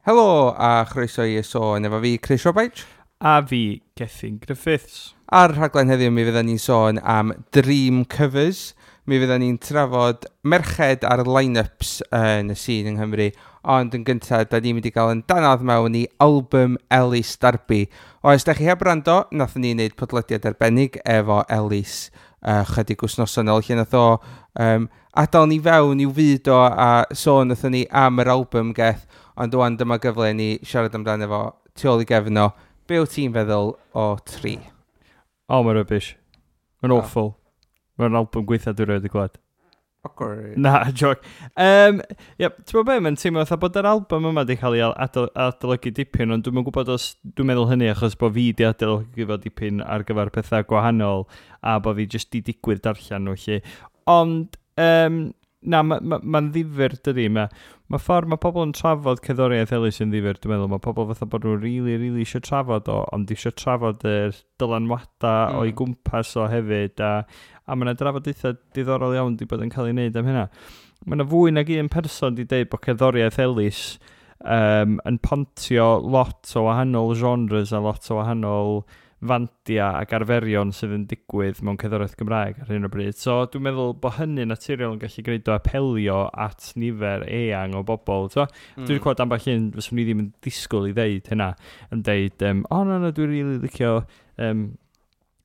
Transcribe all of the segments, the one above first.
Helo a chroeso i Y Sôn efo fi, Chris Robaich. A fi, Gethin Griffiths. Ar rhaglen heddiw mi fydden ni'n sôn am Dream Covers. Mi fydden ni'n trafod merched ar line-ups yn y sîn yng Nghymru. Ond yn gyntaf, da ni'n mynd i gael yn danadd mewn i album Elis Derby. Oes, da chi heb rando, nathon ni wneud podlediad arbennig efo Elis chydig wythnosau nôl, lle nath o adael ni fewn i'w fyd o a sôn nathon ni am yr album geth, ond wan dyma gyfle ni siarad amdano fo tu ôl i gefn o. Be wyt ti'n feddwl o Tri? O, oh, mae'n rubbish. Mae'n awful. Mae'n album gweitha dwi'n rhaid i glwad. Awkward. Na, joke. Yep, ti'n gwybod be, mae'n teimlo fatha bod yr album yma wedi cael ei adolygu dipyn, ond dwi'n gwybod os dwi'n meddwl hynny achos bod fi wedi adolygu fo dipyn ar gyfer pethau gwahanol a bod fi jyst di digwydd darllen nhw, lle. Ond, na, mae'n ma ddifyr, dydy. Mae ma ffordd mae pobl yn trafod cerddoriaeth Elis yn ddifyr, dwi'n meddwl. Mae pobl fatha bod nhw'n really, really eisiau trafod o, ond eisiau trafod yr dylanwadau o'i gwmpas o hefyd, a mae yna drafodaethau diddorol iawn wedi bod yn cael ei wneud am hynna. Mae yna fwy nag un person wedi dweud bod cerddoriaeth Elis yn pontio lot o wahanol genres a lot o wahanol fandia ac arferion sydd yn digwydd mewn cerddoriaeth Gymraeg ar hyn o bryd. So dwi'n meddwl bod hynny naturiol yn gallu gwneud o apelio at nifer eang o bobl. So, Dwi wedi clywed ambell un fyswn i ddim yn disgwyl i ddeud hynna, yn deud, o na, na, dwi'n rili licio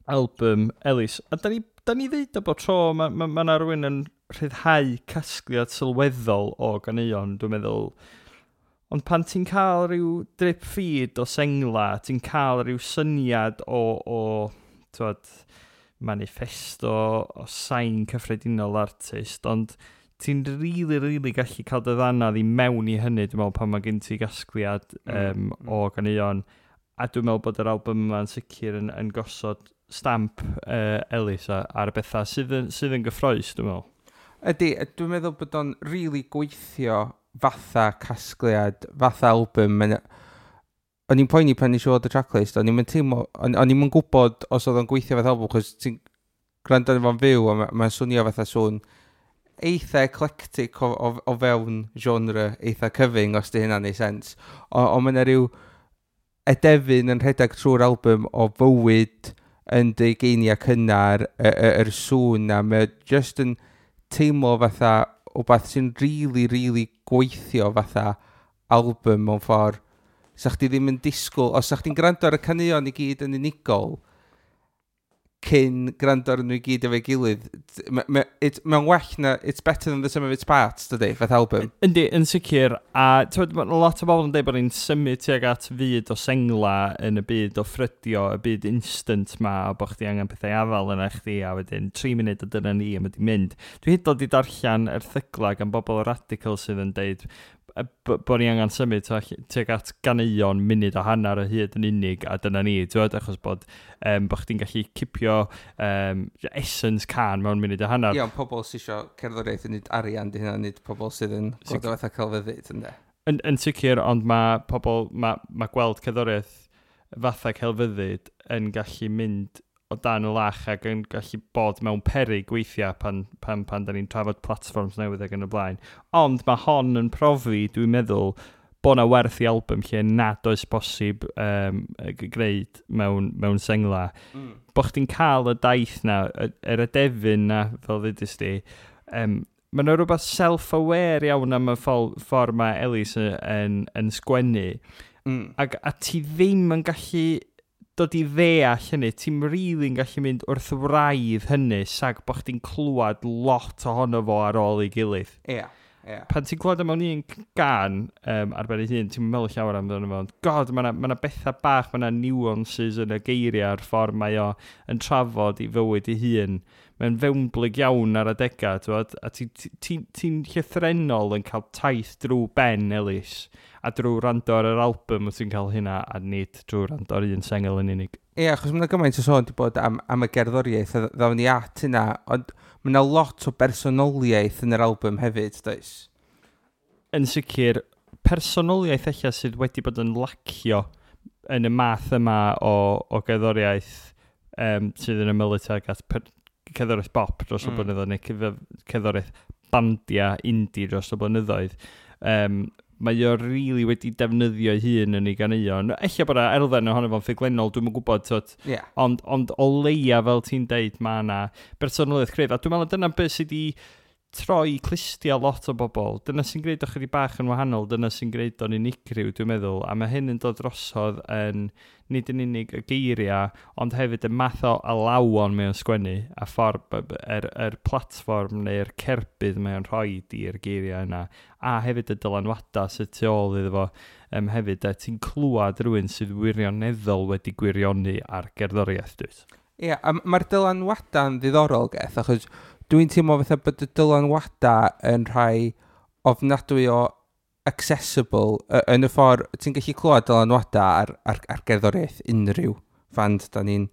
album Elis. A da ni ddeud o bob tro, mae ma rhywun yn rhyddhau casgliad sylweddol o ganeuon, dwi'n meddwl. Ond pan ti'n cael rhyw drip feed o sengla, ti'n cael rhyw syniad o t'wod, manifesto, o sain cyffredinol artist, ond ti'n really, really gallu cael dy ddanadd i mewn i hynny, dwi'n meddwl, pan mae gen ti gasgliad o ganeuon. A dwi'n meddwl bod yr album yma'n sicr yn gosod stamp Elis ar y bethau sydd yn gyffrous, dwi'n meddwl. Ydy, dwi'n meddwl bod o'n really gweithio fatha casgliad, fatha album. O'n i'n poeni pan nes i weld y tracklist, o'n i'n teimlo, o'n i'n gwybod os oedd o'n gweithio fatha album, chos ti'n gwrando arno fo'n fyw, a mae'n swnio fatha sŵn eitha eclectic o fewn genre eitha cyfyng, os di hynna'n neud sens. O mae yna rhyw edefyn yn rhedeg trwy'r album o fywyd yn dy ugeiniau cynnar, yr sŵn na, mae just yn teimlo fatha wbath sy'n really, really gweithio fatha album mewn ffordd. Sa chdi ddim yn disgwyl, os sa chdi'n gwrando ar y caneuon i gyd yn unigol, cyn gwrando ar nhw i gyd efo'i gilydd, mae'n well na, it's better than the sum of its parts, dydy, fath album. Yndi, yn sicr, a t'wod, ma' lot o bobl yn dweud bod ni'n symud tuag at fyd o sengla yn y byd o ffrydio, y byd instant ma, a bod chdi angen pethau afal yna chdi, a wedyn 3 munud o dyna ni, a mae di mynd. Dwi hyd yn oed 'di darllen erthygla gan bobl radical sydd yn deud bod ni angen symud tuag at ganeuon munud a hanner o hyd yn unig, a dyna ni, t'wod, achos bod chdi'n gallu cipio essence cân mewn munud a hanner. Ie, ond pobl sydd eisiau cerddoriaeth yn neud arian, di hynna, nid pobl sydd yn gweld o fatha celfyddyd, yndê. Yn sicr, ond mae pobl, mae gweld cerddoriaeth fatha celfyddyd yn gallu mynd o dan y lach ac yn gallu bod mewn peryg weithiau pan da ni'n trafod platforms newydd ac yn y blaen. Ond mae hon yn profi, dwi'n meddwl, bod na werth i album lle nad oes bosib gwneud mewn sengla. Bo chdi'n cael y daith na, yr edefyn na, fel ddudus di, mae yna rhywbeth self-aware iawn am y ffordd mae Elis yn sgwennu. Ac a ti ddim yn gallu dod i ddeall hynny, ti'n really'n gallu mynd wrth wraidd hynny, sag bod chdi'n clywed lot ohono fo ar ôl ei gilydd. Ie, ie. Pan ti'n clywed o mewn un gân ar ben ei hun, ti'n meddwl llawer amdano fo, ond God, mae yna ma bethau bach, mae yna nuances yn y geiriau a'r ffordd mae o yn trafod i fywyd ei hun. Mae'n fewnblyg iawn ar adegau, t'wod, a ti'n ti, ti, ti llythrennol yn cael taith drwy ben Elis, a drwy rando ar yr album wyt ti'n cael hynna, a nid drwy rando ar un sengl yn unig. Ie, achos mae yna gymaint o sôn wedi bod am y gerddoriaeth, a ddawn ni at hynna, ond mae yna lot o bersonoliaeth yn yr album hefyd, does? Yn sicr, personoliaeth eich sydd wedi bod yn lacio yn y math yma o gerddoriaeth sydd yn ymylu tuag at cerddoriaeth bop dros y blynyddoedd, neu cerddoriaeth bandia indie dros y blynyddoedd. Mae o really wedi defnyddio ei hun yn ei ganeuon. Ella bod yna elfen ohono fo'n ffuglenol, dwi'm yn gwybod, t'wod. Ond o leia, fel ti'n deud, mae yna bersonoliaeth cryf. A dwi'n meddwl dyna beth sydd wedi troi clustia lot o bobl. Dyna sy'n gwneud o chydig bach yn wahanol, dyna sy'n gwneud o'n unigryw, dwi'n meddwl. A mae hyn yn dod drosodd yn nid yn unig y geiriau, ond hefyd y math o alawon mae o'n sgwennu, a ffordd yr platfform neu'r cerbyd mae o'n rhoi i'r geiriau yna, a hefyd y dylanwadau sydd tu ôl iddo fo hefyd. Ti'n clywed rhywun sydd wirioneddol wedi gwirioni ar gerddoriaeth, dwyt? Ie, yeah, a mae'r dylanwadau'n ddiddorol, Geth, achos dwi'n teimlo fatha bod y dylanwadau yn rhai ofnadwy o accessible yn y ffordd ti'n gallu clywed dylanwadau ar gerddoriaeth unrhyw fand da ni'n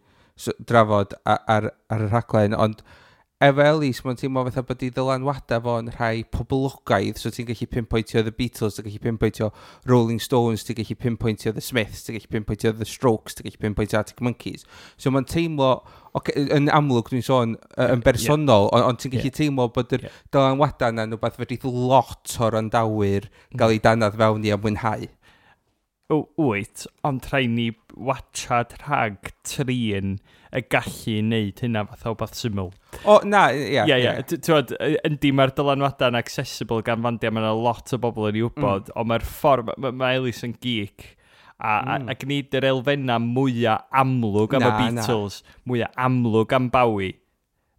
drafod ar y rhaglen, ond efo Elis, mae'n teimlo fatha bod ei ddylanwadau fo'n rhai poblogaidd, so ti'n gallu pinpointio The Beatles, ti'n gallu pinpointio Rolling Stones, ti'n gallu pinpointio The Smiths, ti'n gallu pinpointio The Strokes, ti'n gallu pinpointio Arctic Monkeys. So mae'n teimlo, okay, yn amlwg dwi'n sôn yn bersonol, ond ti'n gallu teimlo bod yr dylanwadau yna'n rhywbeth fedrith lot o'r wrandawyr gael ei danadd fewn i a mwynhau. O, wyt, ond rhaid ni watchad rhag trin y gallu wneud hynna fatha o beth syml. O, na, ie. Ie. T'wod, yndi, mae'r dylanwadau'n accessible gan fandiau, mae yna lot o bobl yn ei wybod, ond mae'r ffordd, mae Elis yn geek, a gwneud yr elfennau mwyaf amlwg am y Beatles, mwyaf amlwg am Bowie,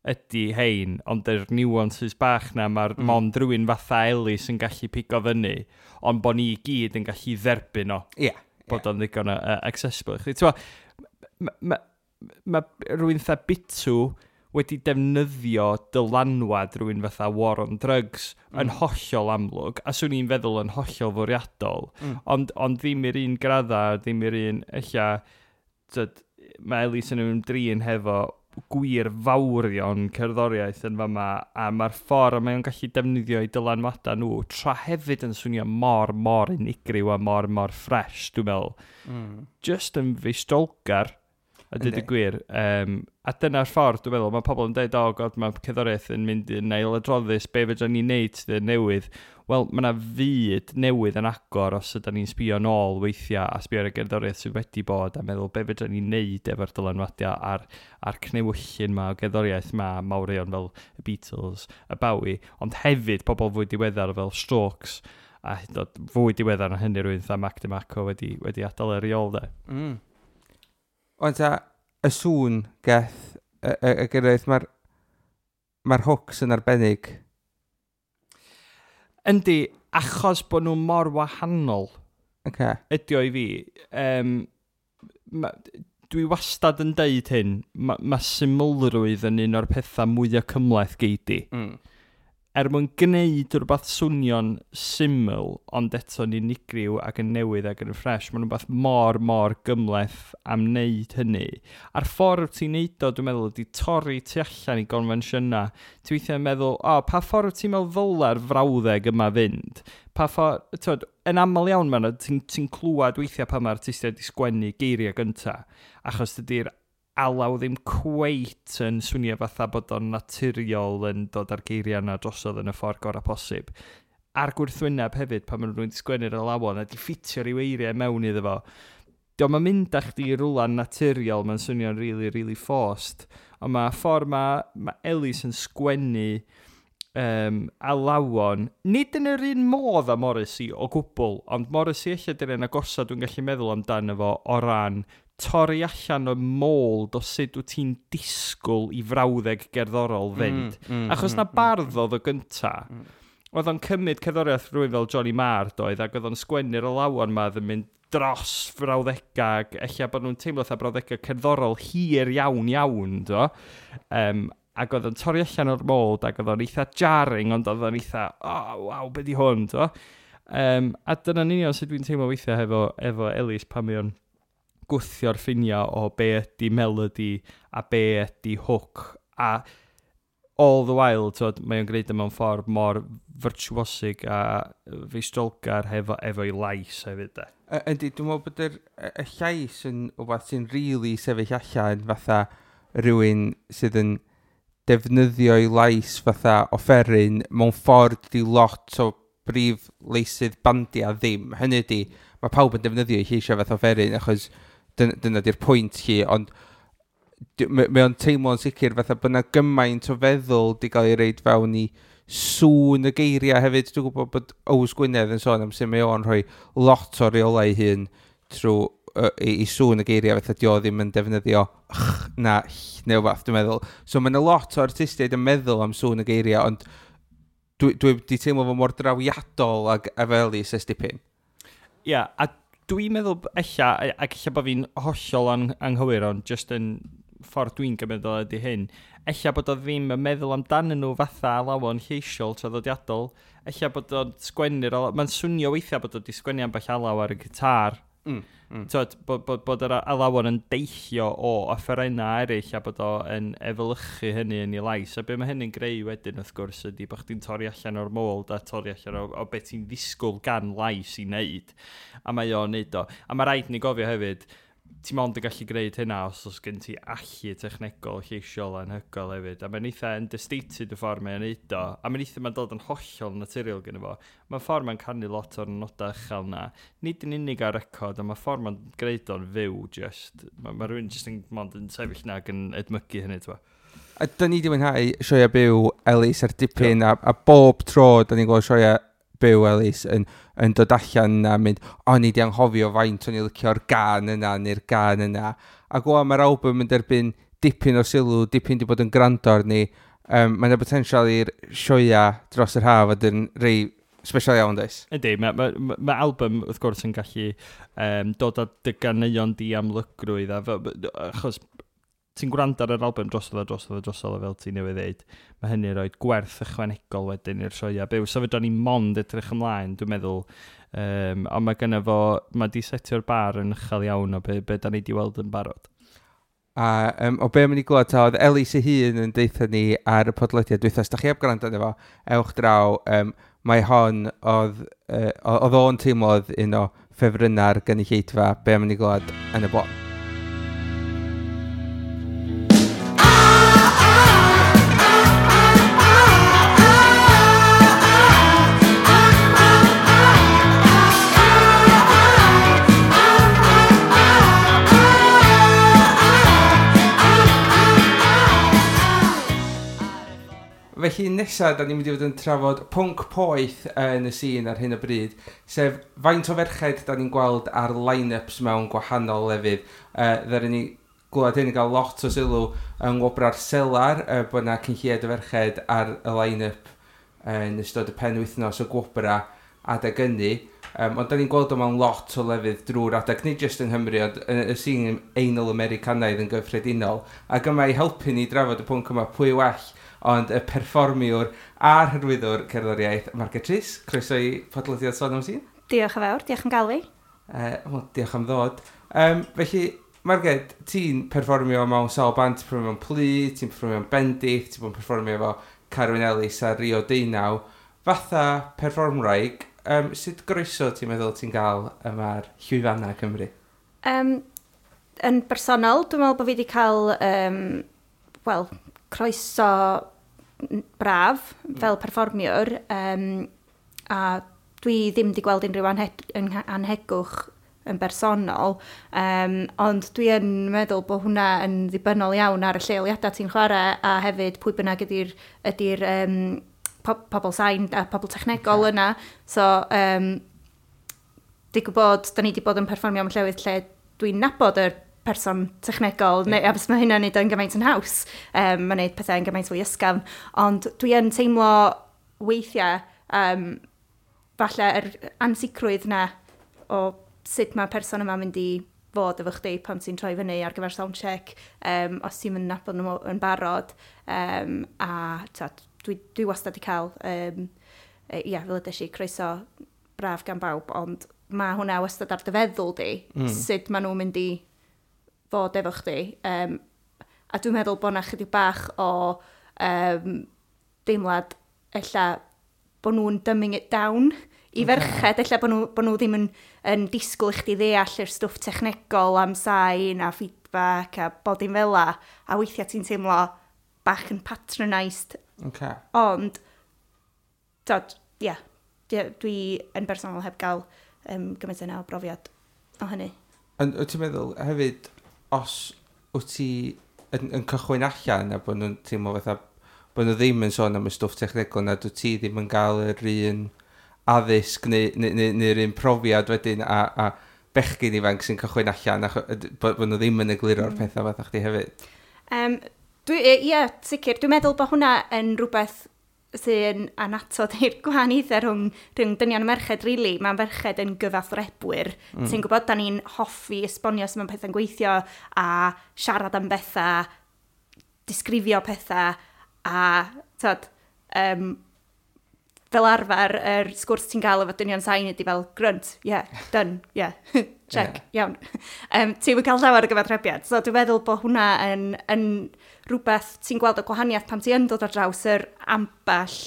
ydy hein, ond yr nuances bach na, mae'r mond rhywun fatha Elis yn gallu pigo fyny, ond bod ni i gyd yn gallu dderbyn o bod o'n ddigon o accessible i chdi. T'mo, ma rhywun fatha Bitw wedi defnyddio dylanwad rhywun fatha War on Drugs yn hollol amlwg, a swn i'n feddwl yn hollol fwriadol, ond ddim i'r un gradda, ddim i'r un, ella, tyd, mae Elis yn ymdrin hefo gwir fawrion cerddoriaeth yn fama, a mae'r ffordd mae o'n gallu defnyddio ei dylanwadau nhw, tra hefyd yn swnio mor, mor unigryw a mor, mor fresh, dwi'n meddwl. Just yn feistrolgar, a dweud y gwir. A dyna'r ffordd, dwi'n meddwl, mae pobl yn dweud, "Oh God, mae cerddoriaeth yn mynd yn ailadroddus, be fedra ni wneud sydd yn newydd?" Wel, mae yna fyd newydd yn agor os ydyn ni'n sbio nôl weithiau a sbio ar y gerddoriaeth sydd wedi bod a meddwl be fedra ni wneud efo'r dylanwadiau a'r cnewyllyn ma o gerddoriaeth ma mawrion fel y Beatles, y Bowie, ond hefyd pobl fwy diweddar fel Strokes a hyd yn oed fwy diweddar na hynny rhywun fatha Mac DeMarco wedi adael ar ei ôl, de. Ond ta, y sŵn, Geth, y gerddoriaeth, mae'r hooks yn arbennig. Yndi, achos bod nhw mor wahanol ydi o i fi. Dwi wastad yn deud hyn, ma symlrwydd yn un o'r pethau mwyaf cymhleth gei di. Er mwyn gwneud rhywbeth swnio'n syml, ond eto'n unigryw ac yn newydd ac yn ffres, mae'n rhywbeth mor, mor gymhleth am wneud hynny. A'r ffordd wyt ti'n neud o, dwi'n meddwl, ydy torri tu allan i gonfensiynau. Ti weithiau'n meddwl, "O, pa ffordd wyt ti'n meddwl ddyle'r frawddeg yma fynd?" Pa ffordd, t'wod, yn aml iawn, man, ti clywed weithiau pan mae'r artistiaid wedi sgwennu geiriau gynta, achos dydy'r alaw ddim cweit yn swnio fatha bod o'n naturiol yn dod â'r geiriau yna drosodd yn y ffordd gorau posib. A'r gwrthwyneb hefyd, pan maen nhw'n sgwennu'r alawon a di ffitio rhyw eiriau mewn iddo fo. Dio'm yn mynd â chdi i rwla naturiol, mae'n swnio'n really, really forced. Ond mae ffordd mae Elis yn sgwennu alawon, nid yn yr un modd â Morrissey o gwbl, ond Morrissey ella dy'r un agosa dwi'n gallu meddwl amdano fo o ran torri allan o mold o sut wyt ti'n disgwyl i frawddeg gerddorol fynd. Achos na bardd oedd o gynta. Oedd o'n cymryd cerddoriaeth rhywun fel Johnny Marr, doedd, ac oedd o'n sgwennu'r alawon ma oedd yn mynd dros frawddegau, ac ella bod nhw'n teimlo fatha brawddegau cerddorol hir iawn iawn, do. Ac oedd o'n torri allan o'r mold, ac oedd o'n eitha jarring, ond oedd o'n eitha, "Oh, waw, be di hwn?" do. A dyna'n union sut dwi'n teimlo weithiau efo Elis pan mae o'n gwthio'r ffiniau o be ydy melody a be ydy hook. A all the while, t'wod, mae o'n gwneud e mewn ffordd mor virtuosic a feistrolgar efo'i lais hefyd, de. Yndi, dwi'n meddwl bod y llais yn wbeth sy'n really sefyll allan fatha rhywun sydd yn defnyddio'i lais fatha offeryn mewn ffordd di lot o brif leisydd bandia ddim. Hynny ydy, mae pawb yn defnyddio ei lleisiau fath offeryn, achos dyna di'r pwynt hi, ond mae o'n teimlo'n sicr fatha bod yna gymaint o feddwl di gael ei reid fewn i sŵn y geiriau hefyd. Dwi'n gwybod bod Ows Gwynedd yn sôn am sut mae o'n rhoi lot o reolau ei hun trwy i sŵn y geiriau, fatha di o ddim yn defnyddio ch na ll neu wbath, dwi'n meddwl. So mae yna lot o artistiaid yn meddwl am sŵn y geiriau, ond dwi wedi teimlo fo mor drawiadol ag efo Elis ers dipyn. Ie, yeah, a dwi'n meddwl ella, ac ella bod fi'n hollol anghywir, ond just yn ffordd dwi'n gymryd o ydy hyn, ella bod o ddim yn meddwl amdanyn nhw fatha alawon lleisiol traddodiadol, ella bod o'n sgwennu'r alaw, mae'n swnio weithiau bod o wedi sgwennu ambell alaw ar y gitar. Tyd, bod yr alawon yn deillio o offerynnau eraill a bod o yn efelychu hynny yn ei lais. A be mae hynny'n greu wedyn wrth gwrs ydy bod chdi'n torri allan o'r mold a torri allan o beth ti'n ddisgwyl gan lais i wneud. A mae o'n neud o. A mae rhaid ni gofio hefyd, ti mond yn gallu gwneud hynna os oes gen ti allu technegol lleisiol anhygoel hefyd. A mae'n eitha understated y ffordd mae'n neud o. A mae'n eitha mae'n dod yn hollol naturiol gyda fo. Mae'n ffordd mae'n canu lot o'r nodau uchel na. Nid yn unig ar record, ond mae ffordd mae'n gwneud o'n fyw just. Mae rhywun just yn mond yn sefyll na ac yn edmygu hynny, ti'n. A dyn ni wedi mwynhau sioia byw Elis ar dipyn, a bob tro dyn ni'n gweld sioia byw Elis yn dod allan a mynd, o'n i di anghofio faint o'n i licio'r gan yna neu'r gan yna. Ac o, mae'r album yn derbyn dipyn o sylw, dipyn di bod yn gwrando arni. Mae yna potensial i'r sioia dros yr haf fod yn rei special iawn, does? Ydy, mae album wrth gwrs yn gallu dod â dy ganeuon di amlygrwydd, achos ti'n gwrando ar yr album drosodd a drosodd a drosodd fel ti newydd ddeud, mae hynny rhoi gwerth ychwanegol wedyn i'r sioia byw. So fedra ni mond edrych ymlaen, dwi'n meddwl. Ond mae gynno fo, mae di setio'r bar yn uchel iawn o be da ni di weld yn barod. A o be mynd i glywed, ta, oedd Elis ei hun yn deutha ni ar y podlediad dwytha. Os da chi heb gwrando arno fo, ewch draw. Mae hon, oedd o'n teimlo oedd un o ffefrynnau'r gynulleidfa, be mynd i glywed yn y bôn. Felly nesaf, da ni'n mynd i fod yn trafod pwnc poeth yn y sîn ar hyn o bryd, sef faint o ferched da ni'n gweld ar line-ups mewn gwahanol lefydd. Ddaru ni glywed hyn yn cael lot o sylw yng Ngwobrau'r Selar, bod yna cyn lleied o ferched ar y line-up yn ystod y penwythnos o gwobrau adeg ynny. Ond da ni'n gweld o mewn lot o lefydd drwy'r adeg, nid jyst yng Nghymru, ond yn y sîn Eingl Americanaidd yn gyffredinol. Ac yma i helpu ni drafod y pwnc yma, pwy well ond y perfformiwr a'r hyrwyddwr cerddoriaeth, Margaret Rhys. Croeso i podlediad Sôn am Sîn. Diolch yn fawr, diolch am gael fi. Wel, diolch am ddod. Felly, Margaret, ti'n perfformio mewn sawl band, ti'n perfformio mewn Plu, ti'n perfformio mewn Bendith, ti'n bod yn perfformio efo Carwyn Ellis a Rio Deunaw. Fatha perfformwraig, sut groeso ti'n meddwl ti'n gael yma'r llwyfannau Cymru? Yn bersonol, dwi'n meddwl bod fi wedi cael wel, croeso braf fel perfformiwr, a dwi ddim wedi gweld unrhyw anhegwch yn bersonol, ond dwi yn meddwl bod hwnna yn ddibynnol iawn ar y lleoliadau ti'n chwarae a hefyd pwy bynnag ydy'r pobl sain a pobl technegol yna. So, digwydd bod, da ni wedi bod yn perfformio mewn llefydd lle dwi'n nabod yr person technegol, neu, a mae hynna'n neud o'n gymaint yn haws. Mae'n neud pethau yn gymaint fwy ysgafn. Ond dwi yn teimlo weithiau, falle yr ansicrwydd na o sut mae person yma'n mynd i fod efo chdi pan ti'n troi fyny ar gyfer soundcheck, os ti'n mynd nabod nhw yn barod. A ta, dwi wastad wedi cael, ia, fel ydych chi, croeso braf gan bawb, ond mae hwnna wastad ar dy feddwl di, sut maen nhw'n mynd i fod efo chdi. A dwi'n meddwl bod 'na chydig bach o deimlad ella bod nhw'n dumbing it down i ferched, ella bod nhw ddim yn disgwyl i chdi ddeall yr stwff technegol am sain a feedback a bod dim fel 'a, a weithiau ti'n teimlo bach yn patronised. Ond, dod, ie, yeah, Dwi yn bersonol heb gael gymaint yna o brofiad o hynny. Ond wyt ti'n meddwl hefyd, os wyt ti yn cychwyn allan a bod nhw'n teimlo fatha bod nhw ddim yn sôn am y stwff technegol na dwyt ti ddim yn gael yr un addysg neu'r un profiad wedyn a bechgyn ifanc sy'n cychwyn allan a bod nhw ddim yn egluro'r pethau fatha chdi hefyd. Ie, sicr. Dwi'n meddwl bod hwnna yn rhywbeth sy'n annatod i'r gwahaniaethau rhwng dynion a merched, really. Mae merched yn gyfathrebwyr. Ti'n gwybod, da ni'n hoffi esbonio sut mae pethau'n gweithio a siarad am bethau, disgrifio pethau a, tyd, fel arfer, yr sgwrs ti'n gael efo dynion sain ydy fel grunt, yeah, done, yeah, check, iawn. Ti'n cael llawer o gyfathrebiad. So dwi'n meddwl bod hwnna yn rhywbeth ti'n gweld o gwahaniaeth pan ti yn dod ar draws yr ambell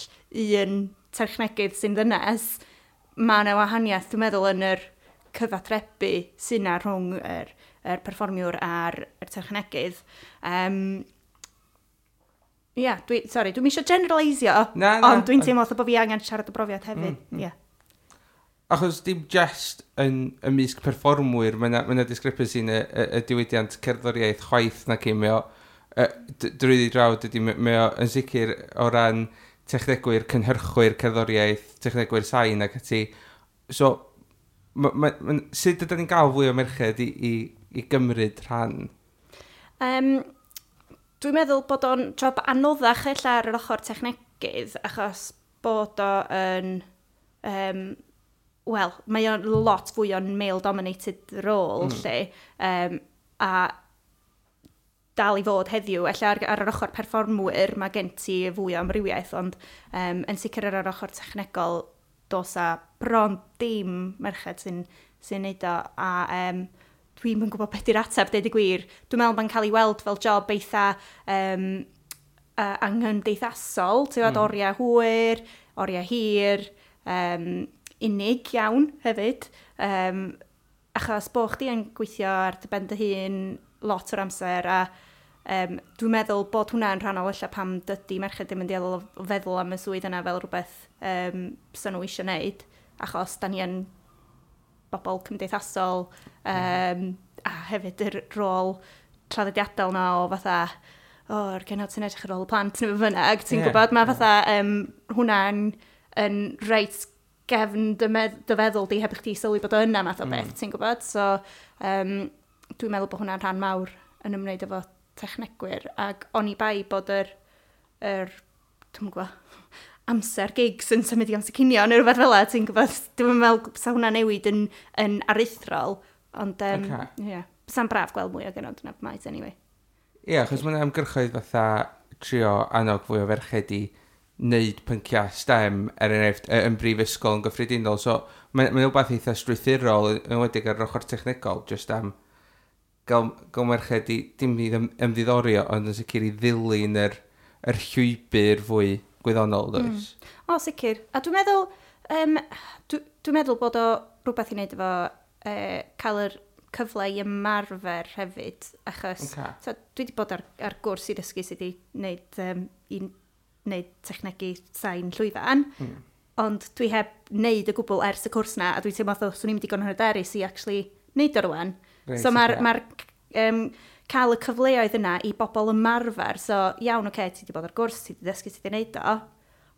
un technegydd sy'n ddynes. Mae yna wahaniaeth, dwi'n meddwl, yn yr cyfathrebu sy'n na rhwng yr perfformiwr a'r yr technegydd. Ie, yeah, sorry, dwi'n eisiau generalisio, Na, na, ond dwi'n teimlo fatha bod fi angen siarad o brofiad hefyd. Yeah. Achos dim just yn ymysg perfformwyr, mae yna ma discrepancy yn y diwydiant cerddoriaeth chwaith na cyn, mae o, drwyddi draw, dydy, mae o yn sicr o ran technegwyr, cynhyrchwyr cerddoriaeth, technegwyr sain ac ati. So, sut ydyn ni'n gael fwy o merched i gymryd rhan? Dwi'n meddwl bod o'n job anoddach ella ar yr ochr technegydd, achos bod o yn... Wel, mae o'n lot fwy o'n male-dominated role, lle. A dal i fod heddiw, ella ar yr ochr perfformwyr mae gen ti fwy o amrywiaeth, ond yn sicr ar yr ochr technegol dos a bron dim merched sy'n neud o, a dwi'm yn gwybod beth yw'r ateb, deud y gwir. Dwi'n meddwl mae'n cael ei weld fel job eitha anghymdeithasol, ti'n gwybod, oriau hwyr, oriau hir, unig iawn hefyd, achos bo chdi yn gweithio ar dy ben dy hun lot o'r amser, a dwi'n meddwl bod hwnna'n rhannol ella pam dydy merched ddim yn dueddol o feddwl am y swydd yna fel rhywbeth fysa nhw eisiau wneud, achos da ni yn bobl cymdeithasol, a hefyd yr rôl traddodiadol na o fatha, o, yr genod sy'n edrych ar ôl y plant neu be bynnag, ti'n gwybod, mae fatha hwnna'n yn reit gefn dy feddwl di heb i chdi sylwi bod o yna math o beth, ti'n gwybod? So, dwi'n meddwl bod hwnna'n rhan mawr yn ymwneud efo technegwyr, ac oni bai bod yr dwi'n gwybod, amser gigs yn symud i amser cinio neu rhywbeth fel 'a, ti'n gwybod, dwi'n meddwl sa hwnna newid yn aruthrol, ond yeah, sa'n braf gweld mwy o genod yn y maes anyway. Ie, yeah, achos mae'n ymgyrchoedd fatha trio annog fwy o ferched i wneud pynciau STEM, er enghraifft, yn brifysgol yn gyffredinol. So, mae'n ma rhywbeth eitha strwythurol, yn enwedig ar yr ochr technegol, just am gael merched i dim i ymddiddorio, ond yn sicr i ddilyn yr llwybr fwy gwyddonol, does? O, sicr. A dwi'n meddwl, dwi meddwl bod o rhywbeth i wneud efo cael yr cyfle i ymarfer hefyd, achos so, dwi wedi bod ar gwrs i ddysgu sut i wneud, i wneud technegu sain llwyfan, ond dwi heb wneud y gwbl ers y cwrs na, a dwi'n teimlo fatha swn i'm digon hyderus i actually wneud o rwan. So mae'r cael y cyfleoedd yna i bobl ymarfer, so iawn, oce, ti wedi bod ar gwrs, ti wedi dysgu sut i wneud o,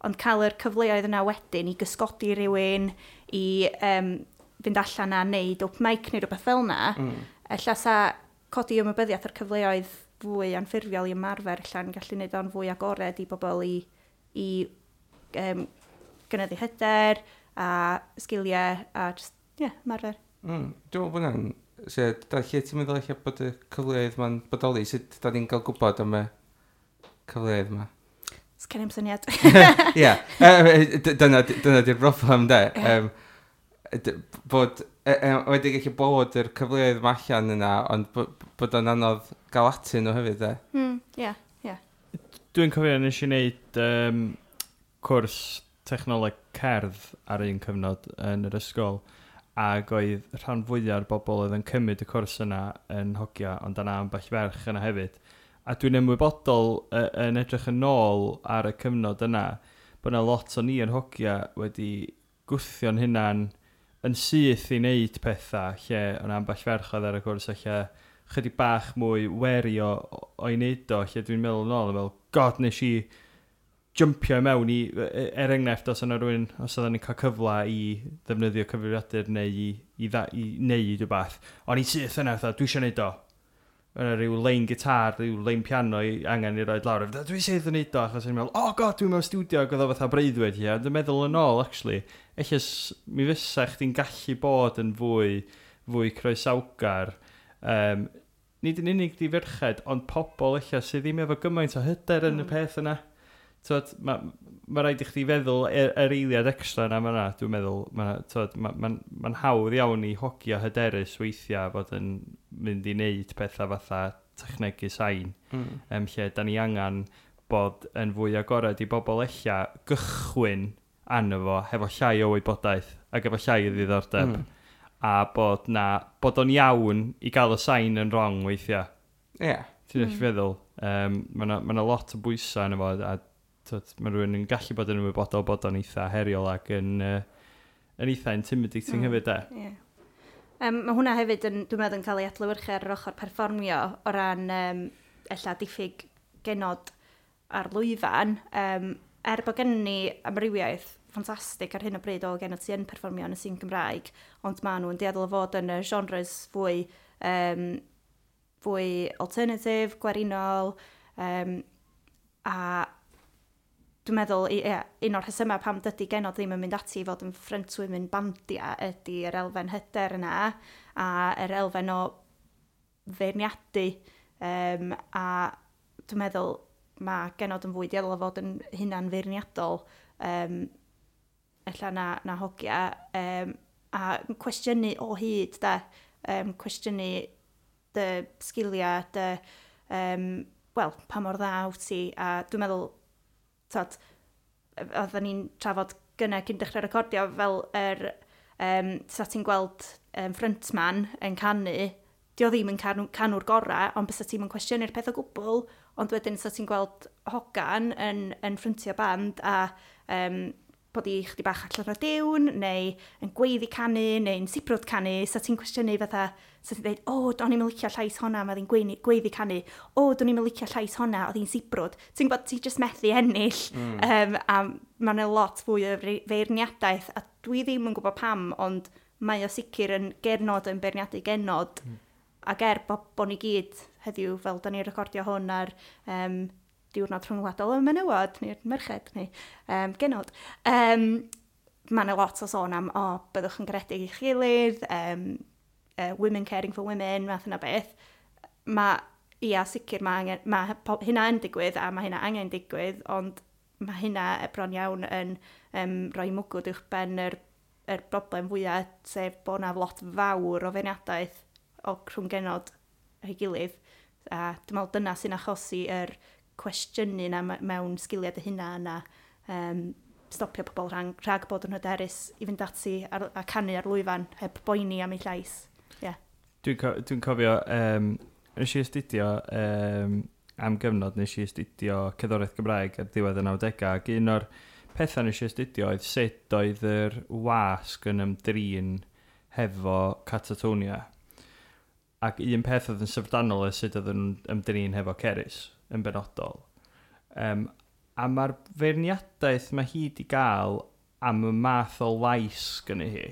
ond cael yr cyfleoedd yna wedyn i gysgodi rhywun, i fynd allan a wneud open mic neu rhywbeth fel yna, ella sa codi ymwybyddiaeth o'r cyfleoedd fwy anffurfiol i ymarfer allan gallu wneud o'n fwy agored i bobl i gynyddu hyder a sgiliau a just, yeah, ymarfer. Dwi'n meddwl bod hwnna'n... So, da, lle ti'n meddwl eich bod y cyfleoedd ma'n bodoli? Sut da ni'n cael gwybod am y cyfleoedd yma? Sgen i'm syniad. Ie, dyna di'r broblem, de. Bod, wedi gallu bod yr cyfleoedd yma allan yna, ond bod o'n anodd gael atyn nhw hefyd, de. Yeah. Dwi'n cofio nes i wneud cwrs technoleg cerdd ar un cyfnod yn yr ysgol, ac oedd rhan fwyaf o'r bobl oedd yn cymryd y cwrs yna yn hogia, ond yna ambell ferch yna hefyd. A dwi'n ymwybodol yn edrych yn ôl ar y cyfnod yna, bod yna lot o ni yn hogia wedi gwthio'n hunan yn syth i wneud pethau lle o'n ambell ferch oedd ar y cwrs lle chydig bach mwy wary o'i wneud o, lle dwi'n meddwl yn ôl, yn fel, "God, nes i jumpio i mewn i, er enghraifft, os yna rhywun, os oedden ni'n cael cyfle i ddefnyddio cyfrifiadur neu i wneud rhywbeth, o'n i syth yna, fatha, dwi eisiau wneud o. Yna rhyw lein gitar, rhyw lein piano i angen i roed lawr. Fatha, dwi syth yn neud o, achos o'n i'n meddwl, "Oh God, dwi'n mewn studio," ac oedd o fatha breuddwyd, ie. Dwi'n meddwl yn ôl, actually, ella mi fysa chdi'n gallu bod yn fwy croesawgar. Nid yn unig di ferched, ond pobl ella sydd ddim efo gymaint o hyder yn y peth yna. Twod, ma rhaid i chdi feddwl yr eiliad extra yna fyna, dwi'n meddwl, twod, ma hawdd iawn i hogia hyderus weithiau fod yn mynd i wneud pethau fatha technegu sain, lle da ni angen bod yn fwy agored i bobl ella gychwyn arno fo hefo llai o wybodaeth ac efo llai o ddiddordeb. A bod o'n iawn i gael y sain yn wrong weithiau. Ti'n feddwl? Mae yna ma lot o bwysau yna fo, a twod, mae rhywun yn gallu bod yn ymwybodol bod o'n eitha heriol ac yn eitha intimidating hefyd, de. Ie. Mae hwnna hefyd yn, dwi'n meddwl, yn cael ei adlewyrchu ar yr ochr perfformio o ran ella diffyg genod ar lwyfan. Er bod gen ni amrywiaeth ffantastig ar hyn o bryd o genod sy'n perfformio yn y sîn Gymraeg, ond maen nhw'n dueddol o fod yn y genres fwy alternative, gwerinol, a dwi'n meddwl, ie, un o'r rhesymau pam dydy genod ddim yn mynd ati i fod yn frontwomen bandia ydy yr elfen hyder yna a yr elfen o feirniadu, a dwi'n meddwl mae genod yn fwy dueddol o fod yn hunan feirniadol ella na hogia, a cwestiynu o hyd de, cwestiynu dy sgiliau, dy, wel, pa mor dda wyt ti, a dwi'n meddwl, tod, oedden ni'n trafod gynna cyn dechrau recordio fel yr, sa ti'n gweld frontman yn canu, di o ddim yn canwr gorau, ond bysa ti'n yn cwestiynu'r peth o gwbl, ond wedyn sa ti'n gweld hogan yn ffryntio band a bod i chdi bach allan o diwn, neu yn gweiddi canu, neu'n sibrwd canu, sa ti'n cwestiynu fatha, sa ti'n dweud, "O, do'n i'm yn licio llais honna, mae hi'n gweiddi canu, o, do'n i'm yn licio llais honna, oedd hi'n sibrwd." Ti'n gwybod, ti jyst methu ennill, a mae'n lot fwy o feirniadaeth, a dwi ddim yn gwybod pam, ond mae o sicr yn genod yn beirniadu genod, ac er bo ni gyd heddiw, fel da ni'n recordio hwn ar diwrnod rhyngwladol y menywod, neu'r merched, neu genod. Mae yna lot o sôn am, o, byddwch yn garedig i'ch gilydd, women caring for women, math yna beth. Mae, ia, sicr mae, angen, mae hynna yn digwydd a mae hynna angen digwydd, ond mae hynna bron iawn yn rhoi mwgwd uwch ben yr broblem fwyaf, sef bod yna lot fawr o feirniadaeth o rhwng genod ei gilydd. A dwi'n meddwl dyna sy'n achosi yr cwestiynu na mewn sgiliau dy hunan a stopio pobl rhag bod yn hyderus i fynd ati a canu ar lwyfan heb boeni am eu llais. Yeah. Dwi'n cofio, nes i astudio, am gyfnod nes i astudio cerddoriaeth Gymraeg ar ddiwedd y 90au, ac un o'r pethau nes i astudio oedd sut oedd yr wasg yn ymdrin hefo Catatonia. Ac un peth oedd yn syfrdanol oedd sut oedd yn ymdrin hefo Cerys yn benodol. A mae'r feirniadaeth mae hi di gael am y math o lais gynnu hi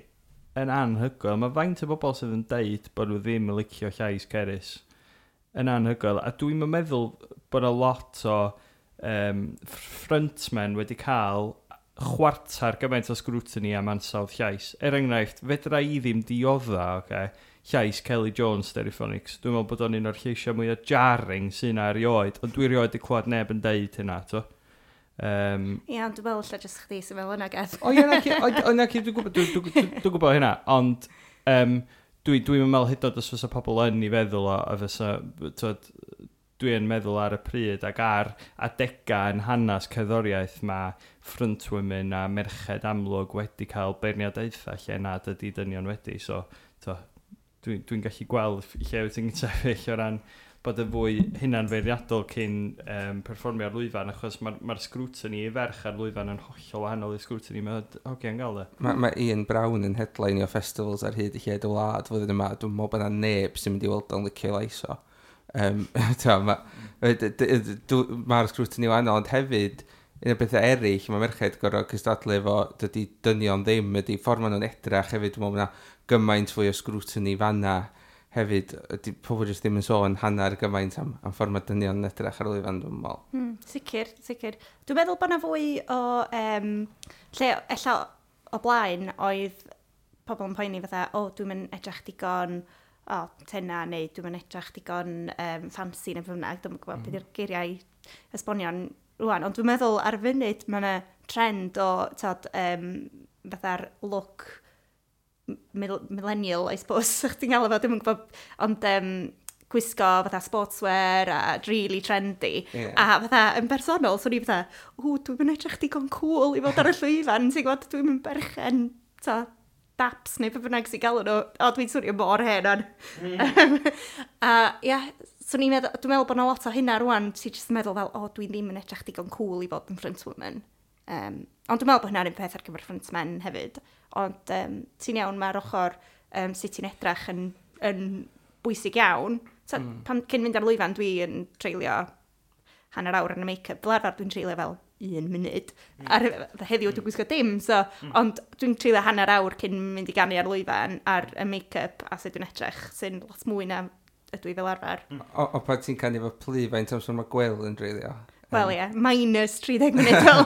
yn anhygoel. Mae faint o bobl sydd yn deud bod nhw ddim yn licio llais Cerys yn anhygoel. A dwi'n meddwl bod yna lot o frontmen wedi cael chwarter gymaint o scrutiny am ansawdd llais. Er enghraifft, fedra i ddim diodda, okay, llais Kelly Jones Stereophonics. Dwi'n meddwl bod o'n un o'r lleisiau mwyaf jarring sy'n yna erioed, ond dwi erioed wedi clywed neb yn deud hynna, to. Ie, ond dwi'n meddwl lle jyst chdi sy'n meddwl yna, Geth. O ie, na ci, dwi'n gwybod hynna, ond dwi'n meddwl hyd yn oed os fysa pobl yn ei feddwl o, a fysa, twod, dwi'n meddwl ar y pryd ac ar adegau yn hanes cerddoriaeth mae frontwomen a merched amlwg wedi cael beirniadaethau lle nad ydy dynion wedi, so to, dwi gallu gweld lle wyt ti'n sefyll o ran bod yn fwy hunanfeirniadol cyn perfformio ar lwyfan, achos mae'r scrutiny i ferch ar lwyfan yn hollol wahanol i'r scrutiny mae hogiau'n gael e. Mae Ian Brown yn headline o festivals ar hyd i lled y wlad flwyddyn yma. Dwi'n meddwl bod yna neb sy'n mynd i weld o'n licio lais o. Mae'r scrutiny wahanol, ond hefyd, un o'r bethau eraill, mae merched gorfod cystadlu efo dydy dynion ddim, ydy ffordd maen nhw'n edrach hefyd, dwi'n meddwl bod yna gymaint fwy o scrutiny fanna hefyd, ydy pobl jyst ddim yn sôn hanner gymaint am ffordd mae dynion yn edrych ar lwyfan, dwi'n meddwl. Sicr, sicr. Dwi'n meddwl bod yna fwy o, lle ella o blaen oedd pobl yn poeni fatha, o, dwi'n mynd edrych digon o, tena, neu dwi'n mynd edrych digon fancy neu bynnag, dwi'n gwybod beth yw'r geiriau esbonion rwan, ond dwi'n meddwl ar y funud mae yna trend o, tod, fatha'r look millennial, I suppose, chdi'n gael efo, dwi'n gwybod, ond gwisgo fatha sportswear a really trendy. A fatha, yn bersonol, so ni fatha, o, dwi'n mynd edrych digon cool i fod ar y llwyfan, ti'n gwybod, dwi'n mynd berchen, ta, daps neu be bynnag sy'n galw nhw. O, dwi'n swnio mor hen on. A ia, so ni'n meddwl, dwi'n meddwl bod yna lot o hynna rwan, ti'n jyst yn meddwl fel, o, dwi ddim yn edrych digon cool i fod yn frontwoman. Ond dwi'n meddwl bod hynna'n un peth ar gyfer frontmen hefyd. Ond ti'n iawn, mae'r ochr sut ti'n edrach yn bwysig iawn. So, pan, cyn mynd ar lwyfan, dwi yn treulio hanner awr yn y make-up. Fel arfer dwi'n treulio fel 1 munud. Ar, heddiw dwi'n gwisgo dim, so, ond dwi'n treulio hanner awr cyn mynd i ganu ar lwyfan ar y make-up a sut dwi'n edrych, sy'n lot mwy na ydw i fel arfer. O pan ti'n canu efo plu, faint amser mae Gwel yn dreulio? Wel ie, minus 30 munud fel.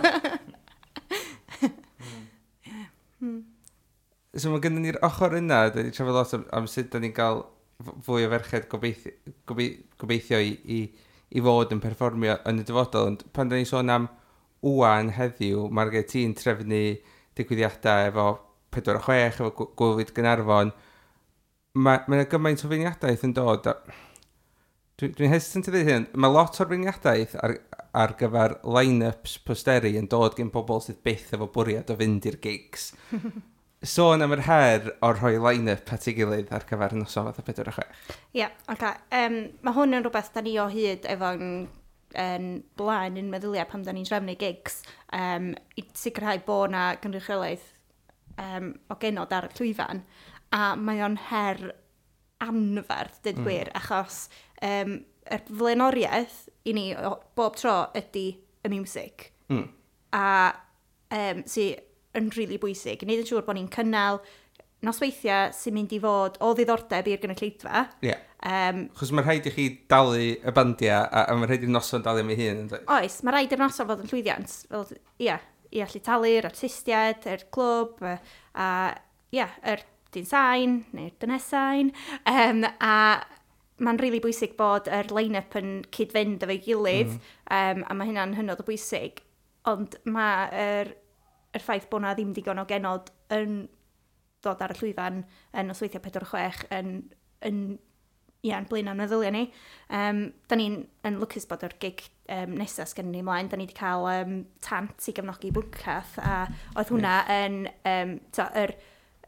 So mae gennym ni'r ochr yna, da ni trafod lot am sut da ni'n cael fwy o ferched gobeithio i fod yn perfformio yn y dyfodol. Ond pan da ni'n sôn am wwan heddiw, mae'r gen ti'n trefnu digwyddiadau efo 4 o 6, efo Gŵyl Gaernarfon. Mae yna gymaint o feirniadaeth yn dod. Dwi'n hesitant i ddweud hyn, mae lot o'r feirniadaeth ar gyfer line-ups posteri yn dod gen pobl sydd byth efo bwriad o fynd i'r gigs. Sôn am yr her o'r rhoi line-up at ei gilydd ar gyfer noson fatha 4 o 6. Ie, yeah, oce. Mae hwn yn rhywbeth da ni o hyd efo'n yn blaen yn meddyliau pan da ni'n trefnu gigs i sicrhau bod na gynrychiolaeth o genod ar y llwyfan. A mae o'n her anferth, dweud gwir, achos yr flaenoriaeth i ni bob tro ydy y music. A sy yn rili really bwysig. Gwneud yn siŵr bod ni'n cynnal nosweithiau sy'n mynd i fod o ddiddordeb i'r gynulleidfa. Ie. Chos mae rhaid i chi dalu y bandiau a mae rhaid i'r noson dalu am ei hun. Yn dweud? Oes, mae rhaid i'r noson fod yn llwyddiant. Fel, ia, i allu talu'r artistiaid, yr clwb, a ia, yr dyn sain, neu'r dynes sain. A mae'n rili really bwysig bod yr line-up yn cyd-fynd efo'i gilydd, a mae hynna'n hynod o bwysig. Ond mae'r yr ffaith bod na ddim digon o genod yn dod ar y llwyfan yn nosweithiau 4-6 yn ia, yn blaen am meddyliau ni. Da ni'n yn lwcus bod yr gig nesaf sgen ni ymlaen. Da ni wedi cael Tant i gefnogi Bwncath, a oedd hwnna yn to, yr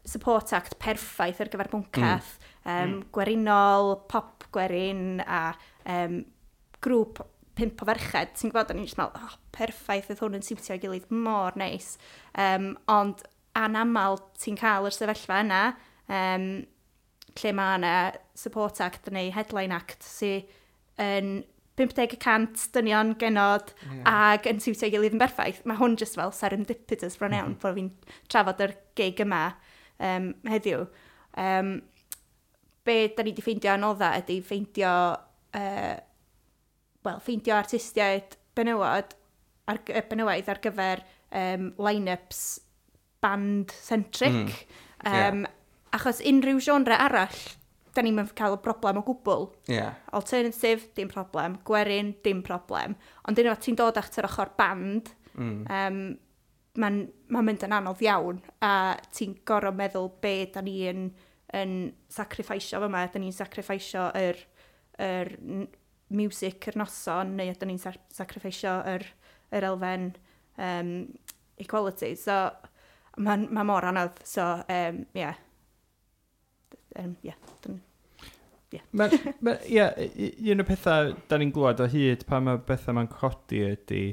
support act perffaith ar gyfer Bwncath. Gwerinol, pop gwerin a grŵp pump o ferched. Ti'n gwybod, o'n i'n just meddwl, oh, perffaith, oedd hwn yn siwtio ei gilydd mor neis. Ond anamal ti'n cael yr sefyllfa yna, lle mae yna support act neu headline act sy'n yn 50% dynion genod ag yn siwtio ei gilydd yn berffaith. Mae hwn just fel serendipitous bron iawn bod fi'n trafod yr gig yma heddiw. Be da ni wedi ffeindio anodda ydy ffeindio, wel, ffeindio artistiaid benywod ar, benywaidd ar gyfer line-ups band-centric. Achos unrhyw genre arall, da ni'n cael y broblem o gwbl. Alternative, dim problem. Gwerin, dim problem. Ond unwaith ti'n dod at yr ochr band, mae'n ma mynd yn anodd iawn. A ti'n gorfod meddwl be da ni yn sacrificio fyma. Da ni'n sacrificio yr music yr noson, neu ydyn ni'n sacrificio yr elfen equality. So, mae'n ma mor anodd. So, yeah. Yeah. Yeah. Ie, un o'r pethau da ni'n glwad o hyd pan mae bethau ma'n codi ydy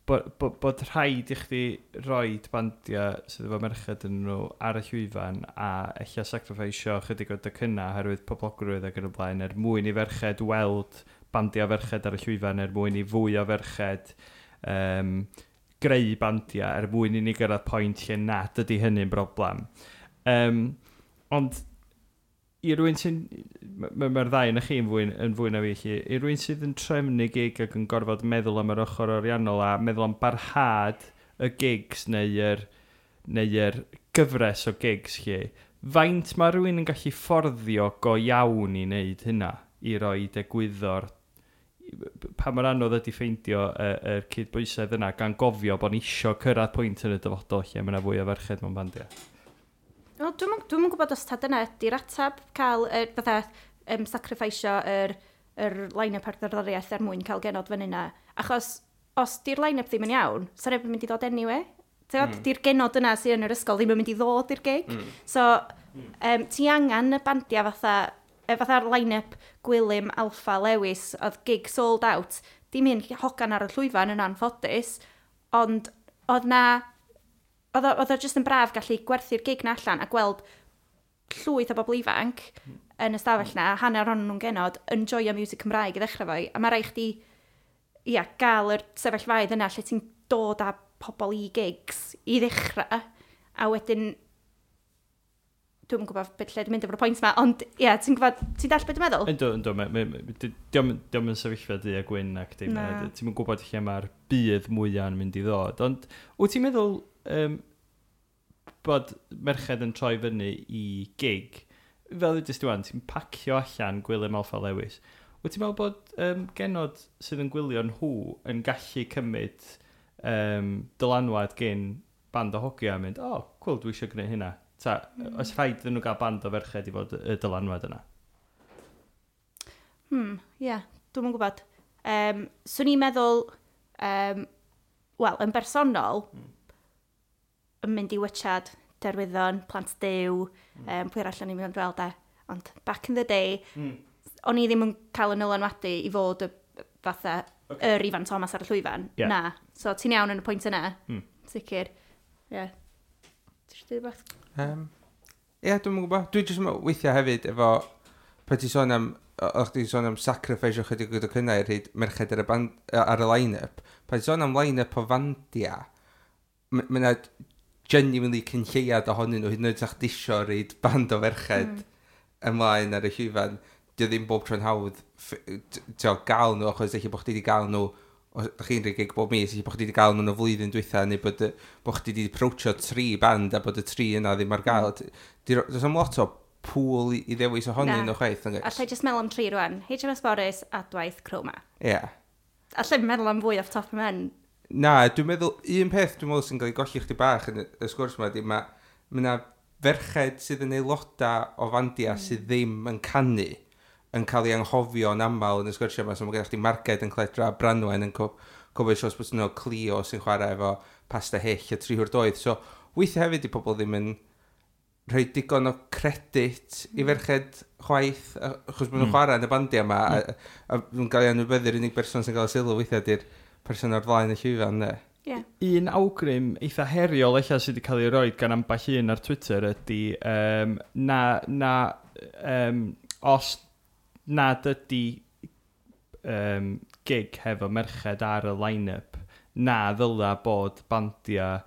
bod rhaid i chdi roid bandiau sydd efo merched yn nhw ar y llwyfan a ella sacrificio chydig o docynnau oherwydd poblogrwydd ac yn y blaen er mwyn i ferched weld bandiau ferched ar y llwyfan, er mwyn i fwy o ferched greu bandiau, er mwyn i ni gyrraedd pwynt lle nad ydy hynny'n broblem. Ond i rywun sy'n... Mae'r ddau yn chi yn fwy na fi, lle. I rywun sydd yn trefnu gig ac yn gorfod meddwl am yr ochr ariannol a meddwl am barhad y gigs neu gyfres o gigs lle, faint mae rhywun yn gallu fforddio go iawn i wneud hynna, i roi egwyddor, pa mor anodd ydy ffeindio y cydbwysedd yna, gan gofio bod ni isio cyrraedd pwynt yn y dyfodol lle mae yna fwy o ferched mewn bandiau? Wel, dwi'm yn gwybod os ta dyna ydy'r ateb, cael fatha sacrificio yr line-up ar gerddoriaeth er mwyn cael genod fyny yna. Achos os di'r line-up ddim yn iawn, sa neb yn mynd i ddod anyway. Mm. Di'r genod yna sydd yn yr ysgol ddim yn mynd i ddod i'r gig. So, ti angen y bandiau fatha'r line-up Gwilym, Alffa, Lewis, oedd gig sold out. Dim un hogan ar y llwyfan yn anffodus, ond oedd o jyst yn braf gallu gwerthu'r gig na allan a gweld llwyth o bobl ifanc yn y stafell na, hanner ohonyn nhw'n genod, yn joio music Cymraeg i ddechrau fo. A mae rhaid chdi, ia, gael yr sefyllfaoedd yna lle ti'n dod â pobl i gigs i ddechrau, a wedyn dwi'n gwybod beth lle dwi'n mynd efo'r pwynt yma, ond ie, yeah, ti'n gwybod, ti'n dall beth dwi'n meddwl? Yndw, dio'm yn sefyllfa du a gwyn ac dim. Ti'n gwybod lle mae'r budd mwyaf yn mynd i ddod. Ond wyt ti'n meddwl bod merched yn troi fyny i gig, fel ddudest ti wan, ti'n pacio allan Gwilym, Alffa, Lewis? Wyt ti'n meddwl bod genod sydd yn gwylio nhw yn gallu cymryd dylanwad gen band o hogia a mynd, "Oh, cool, dwi eisiau gwneud hynna"? Ta, oes rhaid iddyn nhw gael band o ferched i fod y dylanwad yna? Ie, yeah, dwi'm yn gwybod. Swn i'n meddwl, wel, yn bersonol, yn mynd i watchad Derwyddon, Plant Duw, pwy arall o'n i'n mynd weld e. Ond back in the day, o'n i ddim yn cael y nylanwadu i fod y fatha yr Ifan Thomas ar y llwyfan. Na. So ti'n iawn yn y pwynt yna. Sicr. Ie. Yeah. Ti eisiau dweud rhywbeth? Ie, yeah, dwi'm yn gwybod. Dwi jyst yn meddwl weithiau hefyd efo, pan ti'n sôn am, o'ch ti'n sôn am sacrifice o chydig o docynnau i'r rhaid merched ar y, band, ar y line-up. Pan ti'n sôn am line-up o fandia, mae yna genuinely cyn lleiad ohonyn nhw, hyd yn oed sa'ch disio reid band o ferched ymlaen ar y llwyfan. Dio ddim bob tro'n hawdd gael nhw, achos eich bod chdi wedi gael nhw, os ydych chi'n rhoi gig bob mis, eich bod chdi wedi gael nhw yn y flwyddyn dwytha, neu bod chdi wedi approachio tri band a bod y tri yna ddim ar gael. Does am lot o pool i ddewis ohonyn nhw chwaith, nag oes? Allai jyst meddwl am tri rwan. HMS Morris, Adwaith, Chroma. Ie. Yeah. Allai meddwl am fwy off top of my head. Na, dwi'n meddwl, un peth dwi'n meddwl sy'n cael ei golli chdi bach yn y sgwrs yma, di mae yna ferched sydd yn aelodau o fandia sydd ddim yn canu yn cael ei anghofio yn aml yn y sgwrsiau yma. So mae gennych chdi Marged yn Cledra, Branwen yn cofio shows bod nhw, Clio sy'n chwarae efo Pasta Hyll a Tri Hwr Doedd. So weithiau hefyd i pobl ddim yn rhoi digon o credit i ferched chwaith, achos maen nhw'n chwarae yn y bandiau yma, a nhw'n cael ei anwybyddu'r unig berson sy'n cael y sylw weithiau di'r person ar flaen y llwyfan, ne? Yeah. Un awgrym eitha heriol eich sydd wedi cael ei roed gan ambell un ar Twitter ydy na os nad ydy gig hefo merched ar y line-up, na ddyla bod bandiau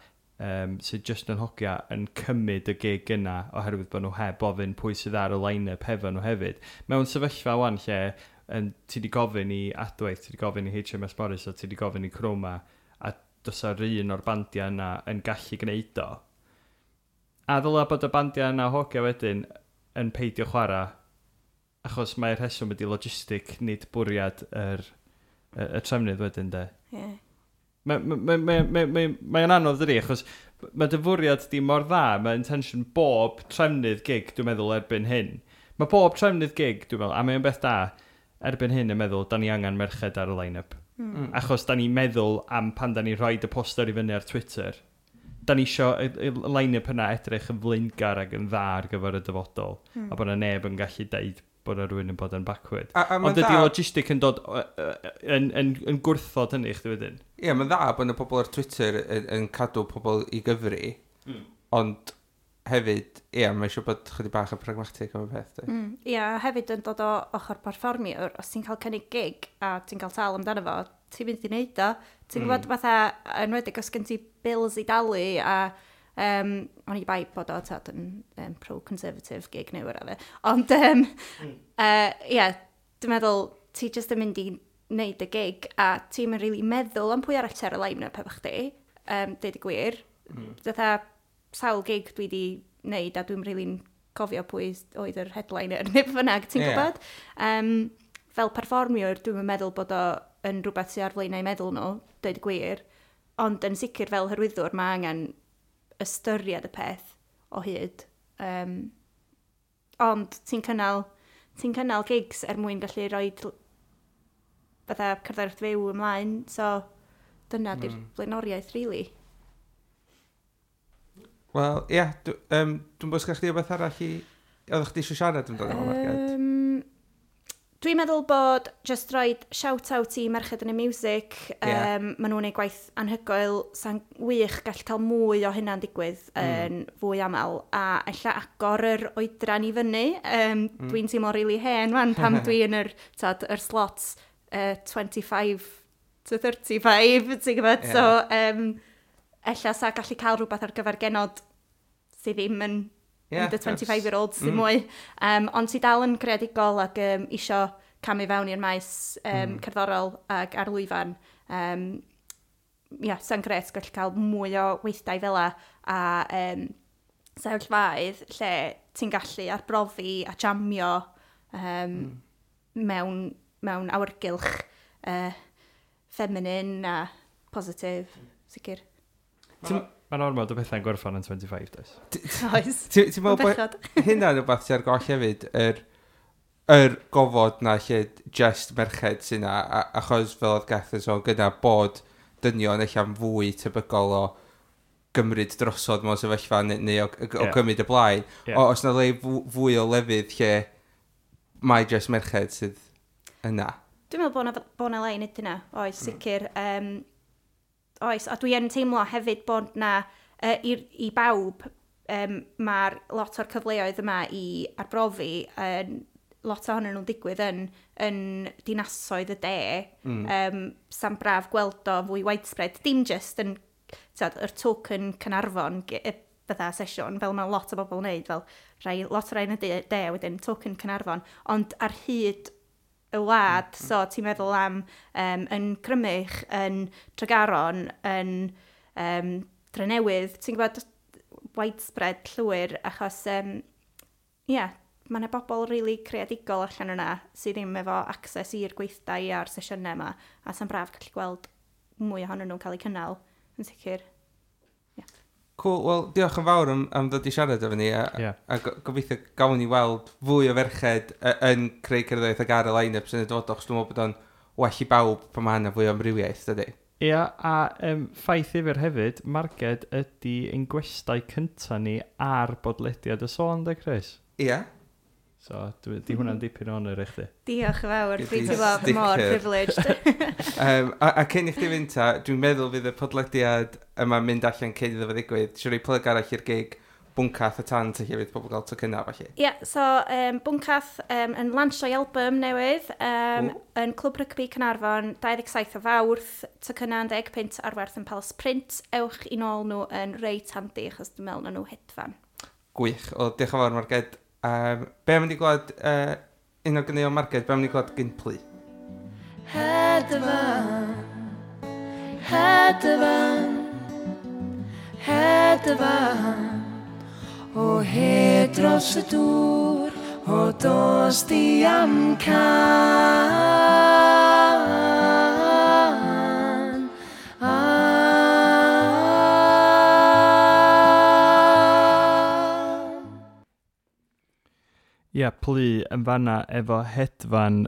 sydd jyst yn hogia yn cymryd y gig yna oherwydd bod nhw heb ofyn pwy sydd ar y line-up hefo nhw hefyd. Mewn sefyllfa wan lle ti wedi gofyn i Adwaith, ti wedi gofyn i HMS Morris a ti wedi gofyn i Chroma a does ar un o'r bandiau yna yn gallu gwneud o. A ddyla bod y bandiau yna hogia wedyn yn peidio chwarae achos mae'r rheswm ydy logistic, nid bwriad y trefnydd wedyn, de. Yeah. Mae'n ma anodd dydi, achos mae dy fwriad di mor dda, mae intention bob trefnydd gig, dwi'n meddwl, erbyn hyn. Mae bob trefnydd gig, dwi'n meddwl, a mae'n beth da, erbyn hyn yn meddwl, da ni angen merched ar y line-up. Achos da ni'n meddwl am pan da ni'n rhoi y poster i fyny ar Twitter. Da ni isio y line-up yna edrych yn flaengar ac yn dda ar gyfer y dyfodol. A bod yna neb yn gallu deud bod yna rhywun yn bod yn backward. A Ond dydy logistic yn dod yn gwrthod hynny chdi wedyn. Ie, yeah, mae'n dda bod yna pobl ar Twitter yn cadw pobl i gyfri, ond hefyd, ie, yeah, mae eisiau bod chydig bach yn pragmatic am y peth. Ie, yeah, hefyd yn dod o ochr perfformiwr, os ti'n cael cynnig gig a ti'n cael tal amdano fo, ti'n mynd i wneud o. Ti'n gwybod fatha, enwedig os gen ti bills i dalu a o'n i bai bod o tad yn pro-conservative gig neu whatever. Ond, ie, dwi'n meddwl, ti jyst yn mynd i wneud y gig a ti'n mynd really meddwl am pwy arall ti ar y line-up efo chdi, deud y gwir. Fatha, sawl gig dwi wedi wneud a dwi'n really'n cofio pwy oedd yr headliner neu beth bynnag, ti'n gwybod? Fel perfformiwr, dwi'n meddwl bod o yn rhywbeth sydd ar flaenau meddwl nhw, deud y gwir, ond yn sicr fel hyrwyddwr mae angen ystyried y peth o hyd. Ond ti'n cynnal gigs er mwyn gallu rhoi fatha cerddoriaeth fyw ymlaen, so dyna di'r blaenoriaeth, really. Wel, ie, yeah, dwi'n bod sgach chdi o beth arall i... Oeddech chdi eisiau siarad amdano fo, Marged? Dwi'n meddwl bod just roid shout-out i Merched yn y Music. Maen nhw'n gwneud gwaith anhygoel, sa'n wych gall cael mwy o hynna'n digwydd yn fwy aml. A ella agor yr oedran i fyny. Dwi'n teimlo really hen wan pam dwi yn yr, tad, yr slots 25 to 35, ti'n gwybod? So, ella sa gallu cael rhywbeth ar gyfer genod sydd ddim yn the 25-year-olds sydd mwy. Ond sydd dal yn creadigol ac isio camu fewn i'r maes cerddorol ac ar lwyfan. Yeah, sa'n gret gallu cael mwy o weithdai fel a sefyllfaoedd lle ti'n gallu arbrofi a jamio mewn awyrgylch feminine a positif, sicr. Mae'n ormod o bethau'n gorffan yn 25, does? Oes. Ti'n meddwl bod Bechod. hynna'n rhywbeth sy'n ar goll hefyd, yr gofod na lle just merched sy'n na, achos fel oedd Geth yn sôn gyda bod dynion eich am fwy tebygol o gymryd drosodd mewn sefyllfa neu o gymryd y blaen. O, os na le fwy o lefydd lle mae just merched sydd yna. Dwi'n meddwl bod na le i wneud hynna, oes, sicr. Oes, a dwi yn teimlo hefyd bod na, i bawb, mae'r lot o'r cyfleoedd yma i arbrofi, lot ohonyn nhw'n digwydd yn dinasoedd y de. Sa'n braf gweld o fwy widespread. Dim just yn t'od, yr token Caernarfon fatha sesiwn, fel mae lot o bobl yn neud, fel rhai, lot o rai yn y de, wedyn token Caernarfon, ond ar hyd y wlad, so ti'n meddwl am yn Crymych, yn Tregaron, yn Drenewydd, ti'n gwybod widespread llwyr, achos, yeah, mae yna bobl really creadigol allan yna sydd ddim efo access i'r gweithdai a'r sesiynau yma, a sa'n braf gallu gweld mwy ohonyn nhw'n cael eu cynnal, yn sicr. Cool, wel, diolch yn fawr am ddod i siarad efo ni, a, a gobeithio gawn ni weld fwy o ferched yn creu cerddoriaeth ag ar y line-ups yn y dyfodol, achos dwi'n meddwl bod o'n well i bawb pan mae yna fwy o amrywiaeth, dydy? Ia, a ffaith ddifyr hefyd, Marged ydy ein gwestai cynta ni ar bodlediad y sôn, de, Chris? Ie. So, di hwnna'n dipyn o honor i chdi. Diolch yn fawr, Gei dwi'n di teimlo mor sticker. privileged. A cyn i chdi fynd ta, dwi'n meddwl fydd y podlediad yma'n mynd allan cyn iddo fo ddigwydd. Siwr i plug arall i'r gig Bwncath y Tant lle fydd pobl gael tocynnau, felly. Ie, yeah, so Bwncath yn lansio'i album newydd yn Clwb Rygbi Caernarfon, 27 o Fawrth, tocynnau yn 10 punt ar werth yn Palace Print. Ewch i nôl nhw yn reit handi, achos dwi'n meddwl na nhw hedfan. Gwych. O, diolch yn fawr, Marged. Be am i glwad, un o ganeuon Marged, be am i glwad Gynplu? Hedfan, hedfan, hedfan, o hed dros y dŵr, o dos di amcan. An. Ia, Plu yn fanna efo Hedfan,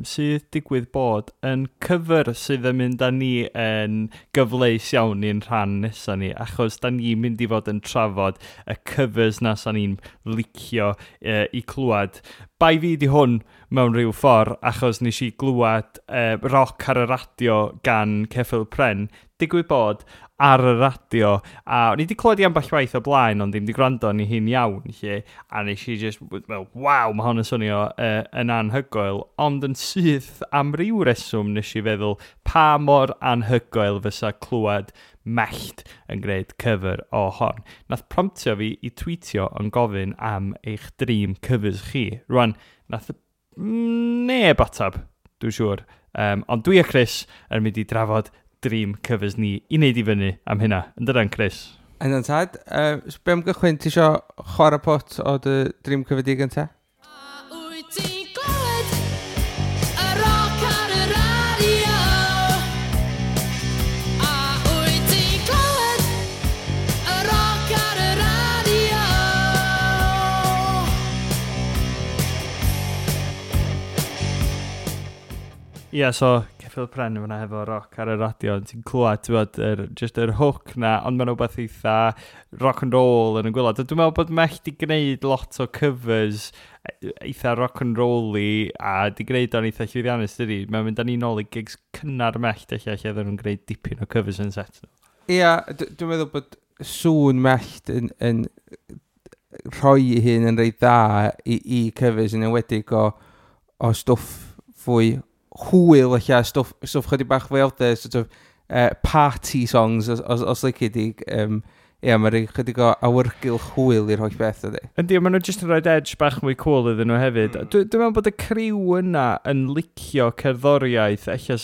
sydd digwydd bod yn cyfer sydd yn mynd â ni yn gyfleus iawn i'n rhan nesaf ni, achos da ni'n mynd i fod yn trafod y covers na sa ni'n licio i clywed. Bai fi di hwn mewn rhyw ffordd, achos nes i glywed Roc ar y Radio gan Ceffyl Pren, digwydd bod ar y radio, a o'n i wedi clywed i ambell waith o blaen, ond ddim wedi gwrando arni hi'n iawn, lle, a nes i just, well, waw, mae hwn yn swnio yn anhygoel, ond yn syth am ryw reswm nes i feddwl pa mor anhygoel fysa clywed Mellt yn gwneud cover o hon. Nath promptio fi i tweetio yn gofyn am eich dream covers chi. Rwan, nath neb atab, dwi'n siŵr. Ond dwi a Chris yn mynd i drafod dream covers ni i wneud i fyny am hynna. Yn dydan, Chris? Yna'n tad, be am gychwyn, ti isio chwarae pot o dy dream cover di gynta? A wyt ti'n clywed y roc ar y radio? A wyt ti'n clywed y roc ar y radio? Ie, yeah, so Ceffyl Pren yma hefo Roc ar y Radio, ti'n clywed, ti'n bod, just yr hook na, ond mae'n rhywbeth eitha rock and roll yn y gwaelod. Dwi'n meddwl bod Mellt di gwneud lot o covers eitha rock and roll-y, a di gwneud o'n eitha llwyddiannus, dydi? Mae'n mynd â ni nôl i gigs cynnar Mellt, lle oedden nhw'n gwneud dipyn o covers yn set nhw. Ia, dwi'n meddwl bod sŵn Mellt yn rhoi ei hun yn reit dda i covers, yn enwedig o stwff fwy hwyl, eich stwff chydig bach fwy out there, sort of party songs, os lici di. Ie, mae'n rhoi chydig o awyrgylch hwyl i'r holl beth ydy. Yndi, maen nhw jyst yn rhoi edge bach mwy cool iddyn nhw hefyd. Dwi'n meddwl bod y criw yna yn licio cerddoriaeth, ella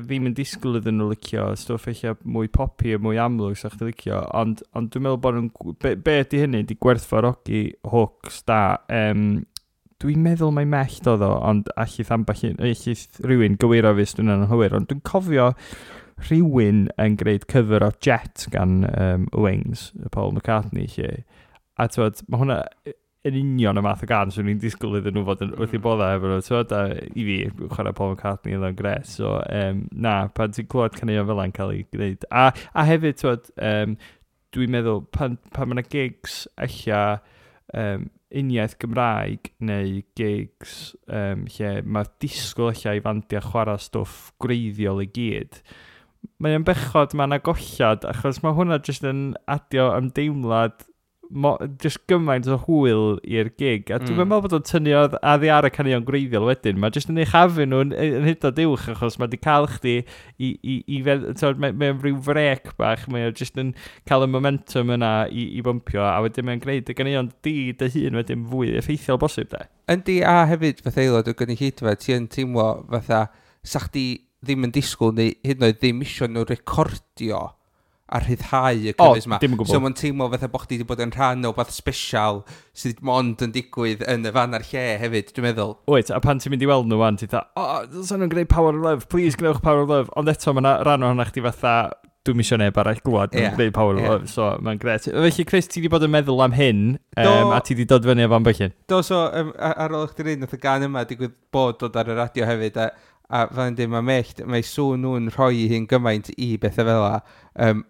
ddim yn disgwyl iddyn nhw licio stwff ella mwy poppy a mwy amlwg sa chdi licio, ond dwi'n meddwl bod nhw'n, be ydy hynny, di gwerthfawrogi hooks da. Dwi'n meddwl mai Mellt oedd o, ond allith ambell un, allith rhywun gywiro fi os dwi'n anghywir, ond dwi'n cofio rhywun yn gwneud cover o Jet gan Wings, Paul McCartney, lle. A t'wod, mae hwnna yn union y math o gan swn i'n disgwyl iddyn nhw fod yn wrth i bodda efo nhw, t'wod, a i fi, chwarae Paul McCartney oedd o'n gret, so na, pan ti'n clywed caneuon fel yna'n cael ei gwneud. A hefyd, t'wod, dwi'n meddwl, pan mae yna gigs ella uniaith Gymraeg neu gigs lle mae disgwyl ella i fandiau chwarae stwff gwreiddiol i gyd, mae o'n bechod, mae yna gollad, achos mae hwnna jyst yn adio ymdeimlad jyst gymaint o hwyl i'r gig. A dwi'n meddwl bod o'n tynnu oddi ar y caneuon gwreiddiol wedyn. Mae jyst yn uchafu nhw yn hyd yn oed uwch, achos mae di cael chdi i t'wod, mae'n rhyw frec bach, mae o jyst yn cael y momentum yna i bympio, a wedyn mae'n gwneud y caneuon di dy hun wedyn fwy effeithiol bosib, de. Yndi, a hefyd fatha aelod o gynulleidfa, ti yn teimlo fatha, sa chdi ddim yn disgwyl neu hyd yn oed ddim isio nhw recordio a rhyddhau y O, covers ma. Dim yn gwbl. So mae'n teimlo fatha bo' chdi wedi bod yn rhan o beth special sydd mond yn digwydd yn y fan a'r lle hefyd, dwi'n meddwl. Wyt, a pan ti'n mynd i weld nhw wan, ti'n dda, o, oh, nhw'n gwneud Power of Love, please gwnewch Power of Love. Ond eto, mae yna rhan ohono chdi fatha, dwi'm isio neb arall glwad nhw'n gwneud Power of Love, so mae'n gret. Felly, Chris, ti wedi bod yn meddwl am hyn, a ti wedi dod fyny efo ambell un. Do, so, ar ôl chdi ddeud, nath y gan yma digwydd bod dod ar y radio hefyd, a fel yn dweud, mae Mellt, mae sŵn nhw'n rhoi i hun gymaint i bethau fel 'a.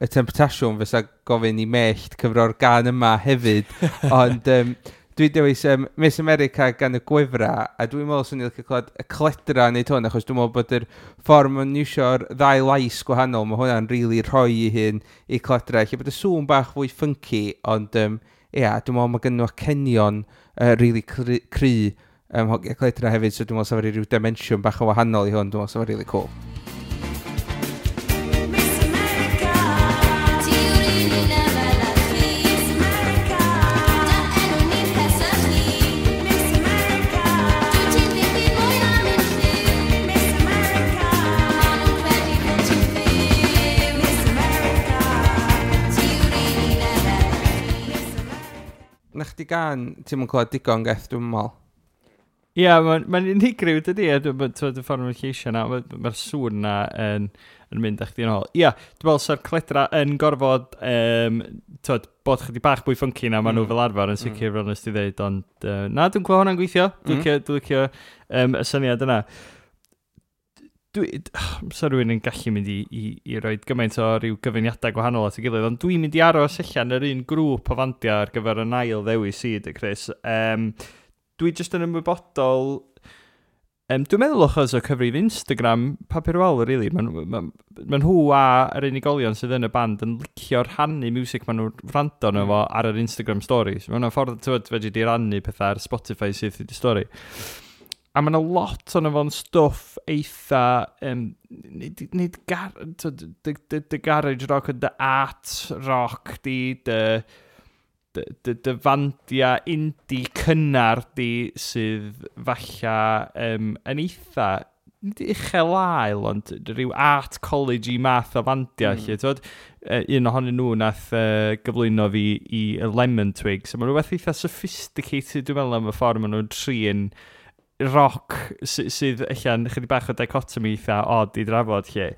Y temptasiwn fysa gofyn i Mellt cyfro'r gan yma hefyd. Ond dwi'n dewis Miss America gan y Gwefra, a dwi'n meddwl swn i'n licio clywed y Cledra yn neud hwn, achos dwi'n meddwl bod yr ffordd ma'n iwsio'r ddau lais gwahanol, mae hwnna'n rili rhoi i hun i Cledra. Lle bod y sŵn bach fwy funky, ond ia, dwi'n meddwl mae gen nhw acenion rili cry hogia Cledra hefyd, so dwi'n meddwl sa fo rhyw dimensiwn bach o wahanol i hwn, dwi'n meddwl sa fo really cool. Miss America, ti yw'r un un efel â chi. Miss America, dy enw ni'n pesychu. Miss America, dwyt ti ddim byd mwy na mynd lliw. Miss America, ma' nhw'n credu bod ti'n fyw. Miss America, ti yw'r un un efel â chi. Na chdi gan, ti'm yn clywed digon, Geth, dwi'n meddwl. Ie, yeah, mae'n unigryw, dydy, a dwi'n y ffordd mae'n lleisio na, mae'r sŵn na yn mynd â chdi yn ôl. Ie, yeah, dwi'n meddwl sa'r cledra yn gorfod twod, bod chydig bach fwy funky na maen nhw fel arfer yn sicr fel nes ti ddeud, ond na, dwi'n gweld hwnna'n gweithio. Dwi'n licio y syniad yna. Sa rhywun yn gallu mynd i roi gymaint o ryw gyfuniadau gwahanol at ei gilydd, ond dwi'n mynd i aros allan yr un grŵp o fandiau ar gyfer y ail ddewis i, dy Chris. Dwi jyst yn ymwybodol, dwi'n meddwl achos o cyfrif Instagram Papur Wal, really. Mae ma nhw a yr unigolion sydd yn y band yn licio rhannu music maen nhw'n wrando arno fo ar yr Instagram stories. Mae hwnna'n ffordd, ti'n fedri di rannu pethau ar Spotify sydd i stori. A mae yna lot o'n fo'n stwff eitha, nid gar, dy garage rock, dy art rock, di, dy fandia indie cynnar di sydd falla yn eitha, nid uchel ael, ond rhyw art college i math o fandia. Lle, t'wod, un ohonyn nhw nath gyflwyno fi i y Lemon Twigs. So, mae'n rhywbeth eitha sophisticated, dwi'n meddwl, am y ffordd maen nhw'n trin rock sydd allan chydig bach o dichotomy eitha odd i drafod lle.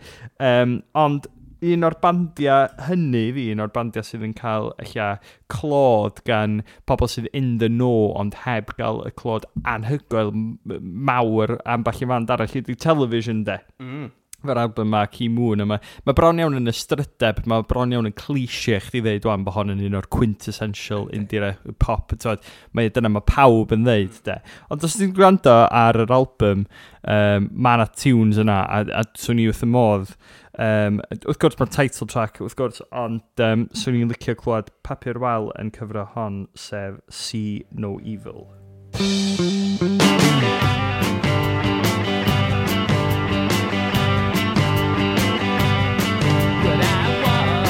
Ond un o'r bandiau hynny fi, un o'r bandiau sydd yn cael ella clod gan pobl sydd in the know ond heb gael y clod anhygoel mawr ambell i fand arall ydy Television, de. Fe'r album ma, Ki Moon yma. Mae bron iawn yn ystrydeb, mae bron iawn yn cliché chdi ddeud wan bod hon yn un o'r quintessential indie pop. T'wod, mae dyna mae pawb yn ddeud, de. Ond os ti'n gwrando ar yr album, mae yna tunes yna, a swn i wrth y modd. Wrth gwrs mae'r title track, wrth gwrs, ond swn i'n licio clywed Papur Wal yn cyfro hon, sef See No Evil. What I want,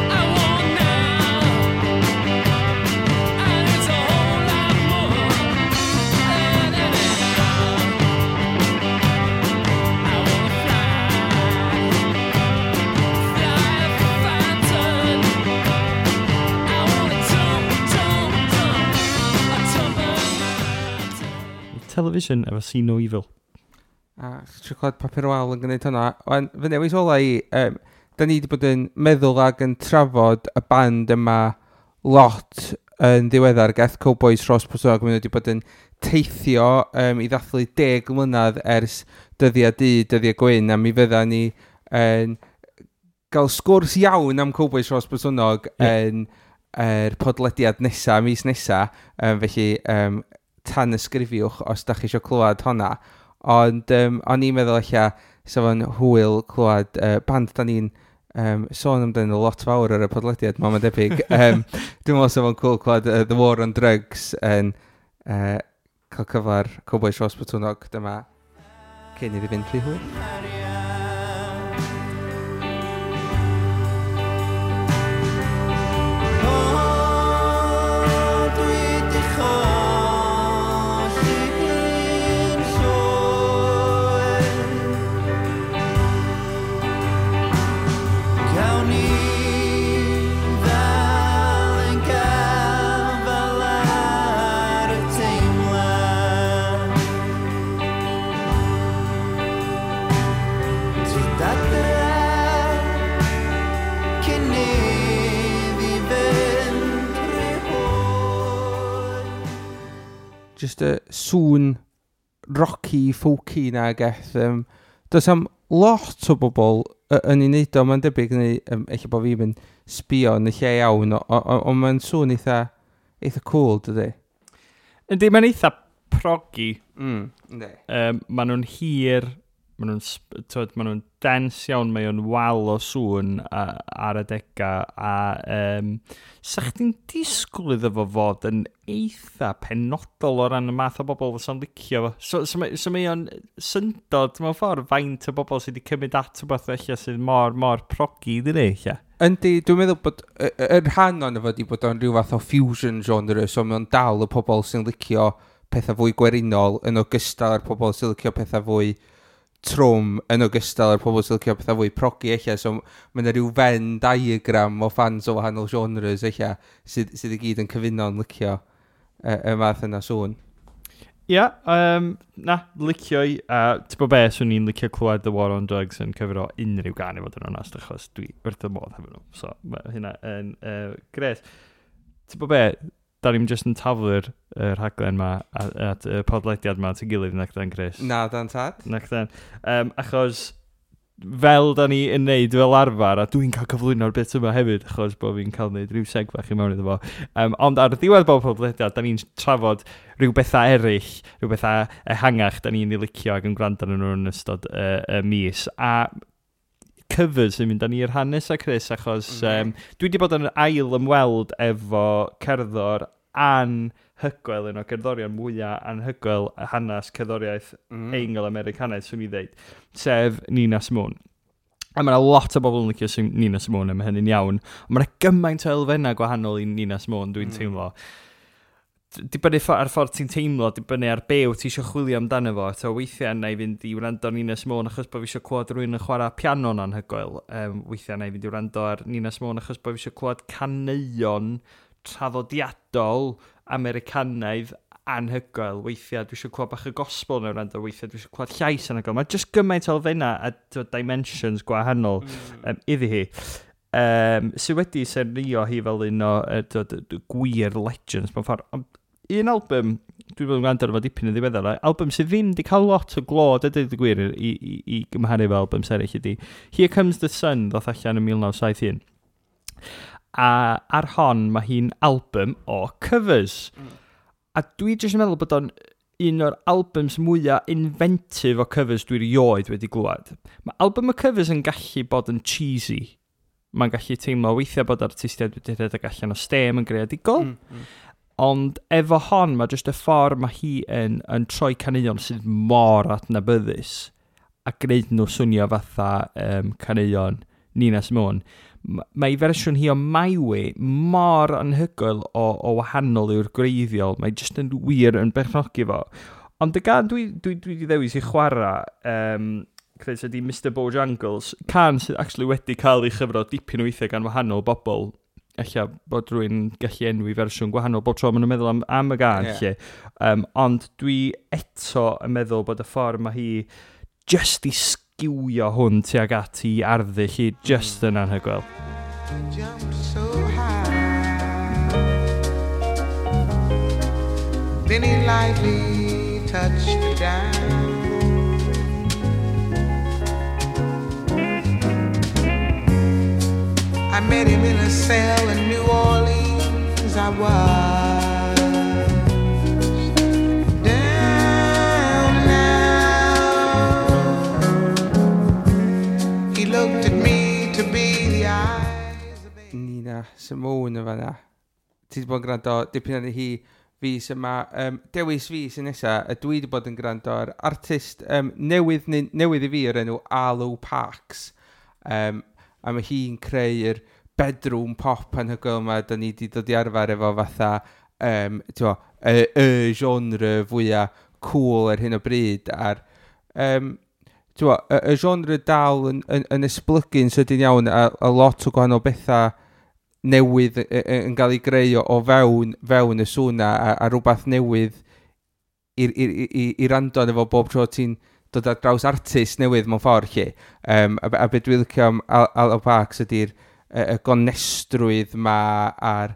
I want now, and it's a whole lot more than anyhow. I wanna fly, fly a phantom. I wanna jump, jump, jump, a jump a mountain. Television efo See No Evil. A trio clywed Papur Wal yn gwneud hwnna. Wan, fy newis ola i, da ni wedi bod yn meddwl ag yn trafod y band yma lot yn ddiweddar, Geth Cowboys Rhos Botwnnog, maen nhw wedi bod yn teithio i ddathlu 10 mlynedd ers Dyddiau Du, Dyddiau Gwyn, a mi fydda ni yn gael sgwrs iawn am Cowboys Rhos Botwnnog yn yr podlediad nesa, mis nesa, felly tan ysgrifiwch os da chi eisiau clywed honna. Ond o'n i'n meddwl ella sa fo'n hwyl clywed band da ni'n sôn amdano lot fawr ar y podlediad, mae'n debyg. Dwi'n meddwl sa fo'n cool clywed The War on Drugs yn cael cyfar Cowboys Rhos Botwnnog dyma cyn iddi fynd rhy hwyr. O, dwi 'di cholli hi'n llwyr. Cawn ni ddal yn gafal ar y teimlad. Tyd adre cyn iddi fynd rhy hwyr. Just y sŵn rocky, folky na geth. Does am lot o bobl yn ei wneud o, mae'n debyg, neu ella bod fi'n mynd sbio yn y lle iawn, ond mae'n sŵn eitha cool, dydy? Yndi, mae'n eitha proggy. Yndi. Maen nhw'n hir, maen nhw'n t'wod, maen nhw'n dense iawn, mae o'n wal o sŵn ar adega, a sa chdi'n disgwyl iddo fo fod yn eitha penodol o ran y math o bobl fysa'n licio fo. So mae o'n syndod mewn ffordd faint o bobl sydd wedi cymryd at rhywbeth felly sydd mor, mor proggy, dydy, ella. Yndi, dwi'n meddwl bod yr rhan o'n fo di bod o'n rhyw fath o fusion genre, so mae o'n dal y pobl sy'n licio pethau fwy gwerinol yn ogystal â'r pobl sy'n licio pethau fwy trwm yn ogystal â'r pobl sy'n licio pethau fwy proggy ella, so mae yna rhyw Venn diagram o fans o wahanol genres ella sydd i gyd yn cyfuno'n licio y math yna sŵn. Ia, na, licio i. A ti'n bod be, swn i'n licio clywed The War on Drugs yn cyfro unrhyw gan i fod yn onest, achos dwi wrth y modd hefo nhw. So, mae hynna yn gret. Ti'n bod be, da ni'n just yn taflu'r rhaglen ma at y podlediad ma at y gilydd, nac dan, Chris? Na, dan tad. Nac dan. Achos fel da ni yn neud fel arfer, a dwi'n cael cyflwyno'r bit yma hefyd, achos bod fi'n cael neud rhyw seg fach i mewn iddo fo. Ond ar ddiwedd bob podlediad, da ni'n trafod rhyw bethau eraill, rhyw bethau ehangach da ni'n ei licio ac yn gwrando arnyn nhw yn ystod y mis. A covers yn mynd â ni i'r rhan nesa, Chris, achos dwi wedi bod yn ail ymweld efo cerddor anhygoel, un o gerddorion mwyaf anhygoel hanes cerddoriaeth Eingl-Americanaidd, swn i ddeud, sef Nina Simone. A mae yna lot o bobl yn licio Nina Simone, a mae hynny'n iawn. Ond mae yna gymaint o elfennau gwahanol i Nina Simone, dwi'n teimlo. Dibynnu ar ffordd ti'n teimlo, dibynnu ar be wyt ti eisiau chwilio amdano fo. So weithiau na i fynd i wrando ar Nina Simone achos bod fi eisiau clywed rhywun yn chwarae piano'n anhygoel. Weithiau na i fynd i wrando ar Nina Simone achos bod fi eisiau clywed caneuon traddodiadol Americanaidd anhygoel. Weithiau dwi eisiau clywed bach y gospel neu wrando, weithiau dwi eisiau clywed llais anhygoel. Mae jyst gymaint o elfennau a dimensions gwahanol iddi hi. Sydd wedi sernio hi fel un o gwir legends mewn ffordd. Ond un album, dwi wedi bod yn gwrando ar fo dipyn yn ddiweddar, album sydd ddim wedi cael lot o glod, a dweud y gwir, i gymharu efo albums eraill ydy Here Comes the Sun, ddoth allan yn 1971. A ar hon, mae hi'n album o covers. A dwi jyst yn meddwl bod o'n un o'r albums mwyaf inventive o covers dwi erioed wedi glwad. Mae album o covers yn gallu bod yn cheesy. Mae'n gallu teimlo weithiau bod artistiaid wedi rhedeg allan o stem yn greadigol. Ond efo hon, mae jyst y ffordd mae hi yn troi caneuon sydd mor adnabyddus a gwneud nhw swnio fatha caneuon Nina Simone. Mae ei fersiwn hi o My Way mor anhygoel o wahanol yw'r gwreiddiol. Mae jyst yn wir yn berchnogi fo. Ond y gan dwi wedi ddewis i chwarae, Chris, ydy Mr Bojangles, can sydd actually wedi cael ei chyfro dipyn o weithiau gan wahanol bobl. Ella bod rhywun gallu enwi fersiwn gwahanol bob tro maen nhw'n meddwl am y gan, lle. Ond dwi eto yn meddwl bod y ffordd mae hi just i sgiwio hwn tuag at i arddull hi just yn anhygoel. Jumped so high. Then he lightly touched the dime. I met him in a cell in New Orleans. I was down now. He looked at me to be the eyes of a Nina Simone yn fanna. Ti wedi bod yn gwrando dipyn arni hi fis yma. Dewis fi sy'n nesa, y dwi wedi bod yn gwrando ar artist newydd, newydd i fi o'r enw Arlo Parks. A mae hi'n creu'r bedroom pop anhygoel yma da ni wedi dod i arfer efo fatha t'mo, y genre fwyaf cool ar hyn o bryd a'r t'mo, y genre dal yn esblygu'n sydyn iawn a lot o gwahanol bethau newydd yn cael ei greu o fewn y sŵn a rhywbeth newydd i rando arno fo bob tro ti'n dod ar draws artist newydd mewn ffordd lle. A be dwi'n licio am Arlo Parks ydy'r y gonestrwydd ma a'r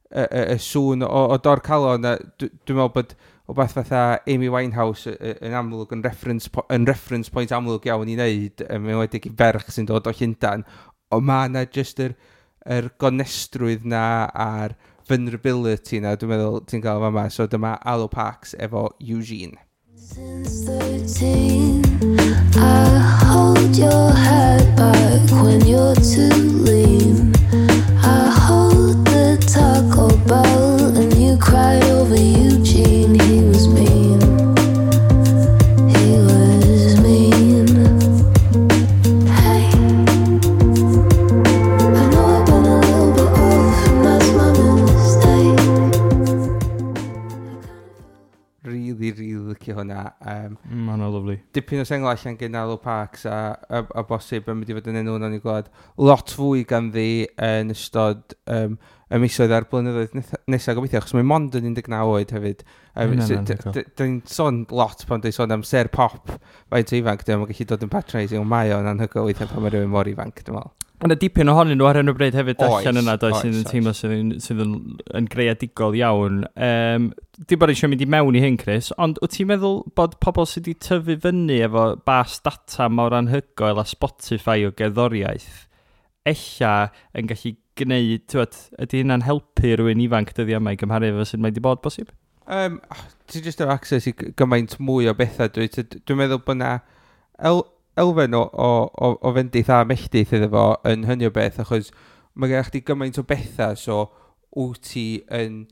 y sŵn o dor calon. A dwi'n meddwl bod wbath fatha Amy Winehouse yn amlwg yn reference point amlwg iawn i wneud, yn enwedig i ferch sy'n dod o Llundain. Ond ma' 'na jyst yr gonestrwydd na a'r vulnerability na, dwi'n meddwl ti'n gael fama. So dyma Arlo Parks efo Eugene. Since 13, I hold your head back when you're too lean. I hold the Taco Bell and you cried over Eugene. He was mean. He was mean. Hey, I know I've been a little bit off, and that's my mistake. Really, really licio hwnna. Mae hwnna lovely. Dipyn o sengl allan gen Arlo Parks a bosib yn mynd i fod yn enw nawn ni glwad lot fwy ganddi yn ystod y misoedd a'r blynyddoedd nesaf gobeithio, achos mae mond yn 19 oed hefyd. Hynna'n So, anhygoel. Dyn ni'n sôn lot pan dwi'n sôn am ser pop faint o ifanc, dwi'n gallu dod yn patronising, ond mae o'n anhygoel weithiau pan mae rhywun mor ifanc, dwi'n meddwl. Mae yna dipyn ohonyn nhw ar hyn o bryd hefyd Oes, allan yna, does, oes, sydd yn oes. teimlo sydd yn greadigol iawn. Dim bod eisiau mynd i mewn i hyn, Chris, ond wyt ti'n meddwl bod pobl sydd wedi tyfu fyny efo bas data mor anhygoel a Spotify o gerddoriaeth, ella yn gallu gwneud, t'wod, ydy hynna'n helpu rhywun ifanc dyddiau yma i gymharu efo sut mae wedi bod bosib? Oh, ti jyst efo access i gymaint mwy o bethau, dwi'n meddwl bod na elfen o fendith a melltith iddo fo yn hynny o beth, achos mae gen chdi gymaint o bethau, so wyt ti yn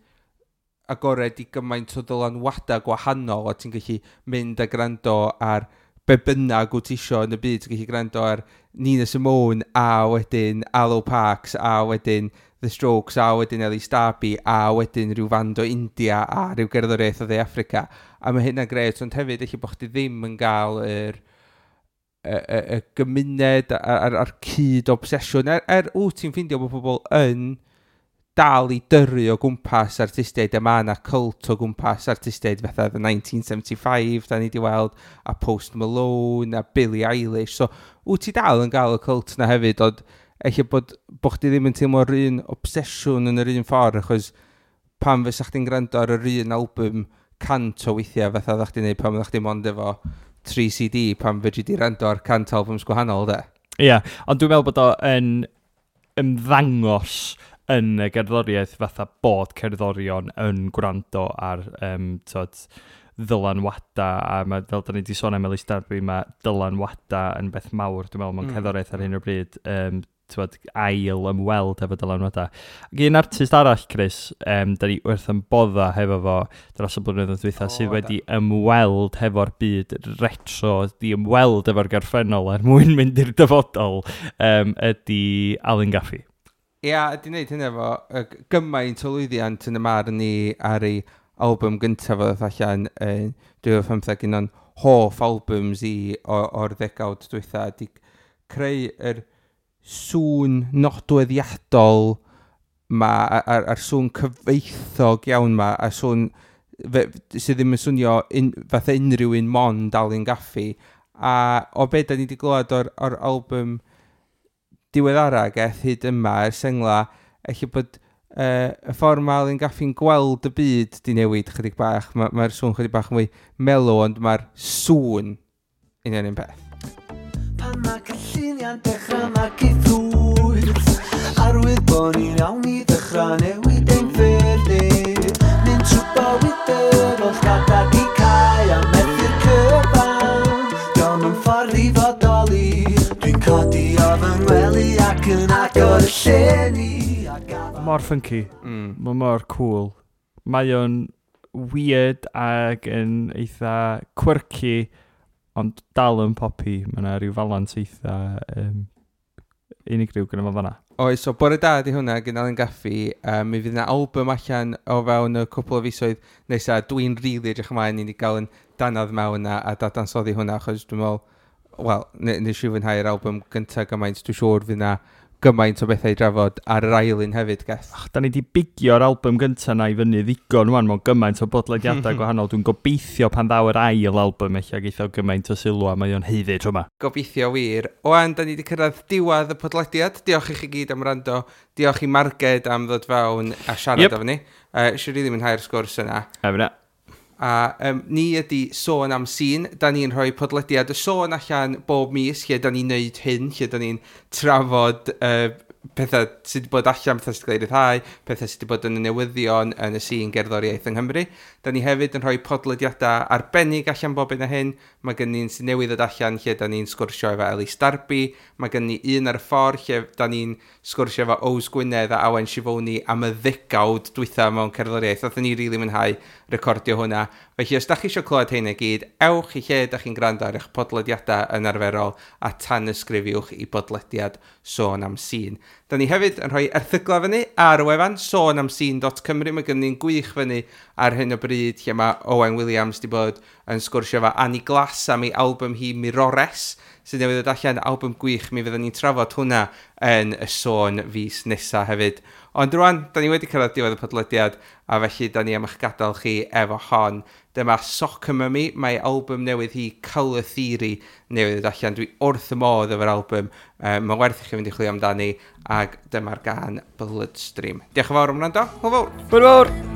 agored i gymaint o ddylanwadau gwahanol, a ti'n gallu mynd a gwrando ar be bynnag wyt ti isio yn y byd, ti'n gallu gwrando ar Nina Simone, a wedyn Arlo Parks, a wedyn The Strokes, a wedyn Ellie Darby, a wedyn rhyw fand o India, a rhyw gerddoriaeth o Dde Affrica. A mae hynna'n gret, ond hefyd eich bod chdi ddim yn gael y gymuned a'r cyd obsesiwn. Er wyt ti'n ffeindio bod pobl yn dal i dyrru o gwmpas artistiaid, a mae yna cult o gwmpas artistiaid fatha The 1975, da ni wedi weld, a Post Malone, a Billie Eilish. So, wyt ti dal yn gael y cult na hefyd, ond eich bod chdi ddim yn teimlo'r un obsesiwn yn yr un ffordd, achos pan fysa chdi'n gwrando ar yr un album 100 o weithiau fatha oeddach chdi'n neud pan oeddach chdi mond efo 3 CD, pan fedri di rando ar 100 albums gwahanol, de. Ie, yeah, ond dwi'n meddwl bod o yn ymddangos yn y gerddoriaeth fatha bod cerddorion yn gwrando ar t'od, ddylanwada, a ma, fel da ni wedi sôn am Elis Darby, mae dylanwada yn beth mawr, dwi'n meddwl, mewn cerddoriaeth ar hyn o bryd, t'wod, ail ymweld efo dylanwada. Ac un artist arall, Chris, da ni wrth yn bodda hefo fo dros y blynyddoedd dwytha, sydd wedi ymweld hefo'r byd retro, di ymweld efo'r gorffennol er mwyn mynd i'r dyfodol, ydy Alun Gaffey. Ia, ydy wneud hynny efo gymaint o lwyddiant yn y marn ni ar ei album gyntaf o ddoth allan yn 2015, un o'n hoff albums i o'r ddegawd dwytha, di creu yr sŵn nodweddiadol ma, a'r sŵn cyfoethog iawn ma, a sŵn sydd ddim yn swnio fatha unrhyw un mond Alun Gaffey. A o be da ni wedi glywed o'r album diweddara geth hyd yma, yr sengla, eich bod y ffordd mae Alun Gaffey'n gweld y byd di newid chydig bach. Mae'r sŵn chydig bach mwy mellow, ond mae'r sŵn union un peth. Pan mae cynlluniau'n dechrau magu ffrwyth, arwydd bod ni'n iawn i ddechrau newid ein ffyrdd ni. Mynd trwy bywyd efo llgada di cau a methu'r cyfan. Dio'm yn ffordd i fodoli. Dwi'n codi o fy ngwely ac yn agor y llenni a gafal- Mor funky. Mae mor cool. Mae o'n weird ac yn eitha quirky, ond dal yn poppy. Mae yna rhyw falans eitha unigryw gyda fo fanna. Oes, so bore da di hwnna gan Alun Gaffey. Mi fydd yna album allan o fewn y cwpl o fisoedd nesaf. Dwi'n rili really edrych ymlaen i ni gael yn danadd mewn a dadansoddi hwnna, achos dwi'n meddwl, wel, nes i fwynhau'r album gyntaf gymaint, dwi'n siŵr fydd yna gymaint o bethau i drafod ar yr ail un hefyd, Geth. Ach, da ni di bigio'r album gyntaf na i fyny ddigon wan mewn gymaint o bodlediadau gwahanol. Dwi'n gobeithio pan ddaw yr ail album eich geith o gymaint o sylw a mae o'n haeddu tro yma. Gobeithio wir. Owan, da ni wedi cyrraedd diwedd y podlediad. Diolch i chi gyd am wrando. Diolch i Marged am ddod fewn a siarad efo ni. Eisiau rili mwynhau'r sgwrs yna. Efo na. A ni ydy Sôn am Sîn. Da ni'n rhoi podlediad y sôn allan bob mis lle da ni'n neud hyn, lle da ni'n trafod pethau sydd wedi bod allan, pethau sydd wedi cael eu rhyddhau, pethau sydd wedi bod yn y newyddion yn y sîn gerddoriaeth yng Nghymru. Da ni hefyd yn rhoi podlediadau arbennig allan bob un o hyn. Mae gen ni'n sy'n newydd ddod allan lle da ni'n sgwrsio efo Elis Darby. Mae gen ni un ar y ffordd lle da ni'n sgwrsio efo Ows Gwynedd a Awen Sifoni am y ddegawd dwytha mewn cerddoriaeth. Nathon ni rili really mwynhau recordio hwnna. Felly os da chi eisiau clywed hyn i gyd, ewch i lle da chi'n gwrando ar eich podlediadau yn arferol a tanysgrifiwch i bodlediad Sôn am Sîn. Da ni hefyd yn rhoi erthyglau fyny ar y wefan sonamscene.cymru. Mae gen ni'n gwych fyny ar hyn o bryd lle mae Owen Williams wedi bod yn sgwrsio efo Annie Glass am ei album hi Mirores, sydd newydd ddod allan, album gwych. Mi fyddwn ni'n trafod hwnna yn y sôn fis nesaf hefyd. Ond rwan, da ni wedi cyrraedd diwedd y podlediad, a felly da ni am eich gadael chi efo hon. Dyma Soccer Mummy, mae album newydd hi Colour Theory newydd ddod allan. Dwi wrth y modd efo'r album. Mae'n werth i chi fynd i chwilio amdani, ac dyma'r gân Bloodstream. Diolch yn fawr am wrando. Hwyl fawr! Hwyl fawr!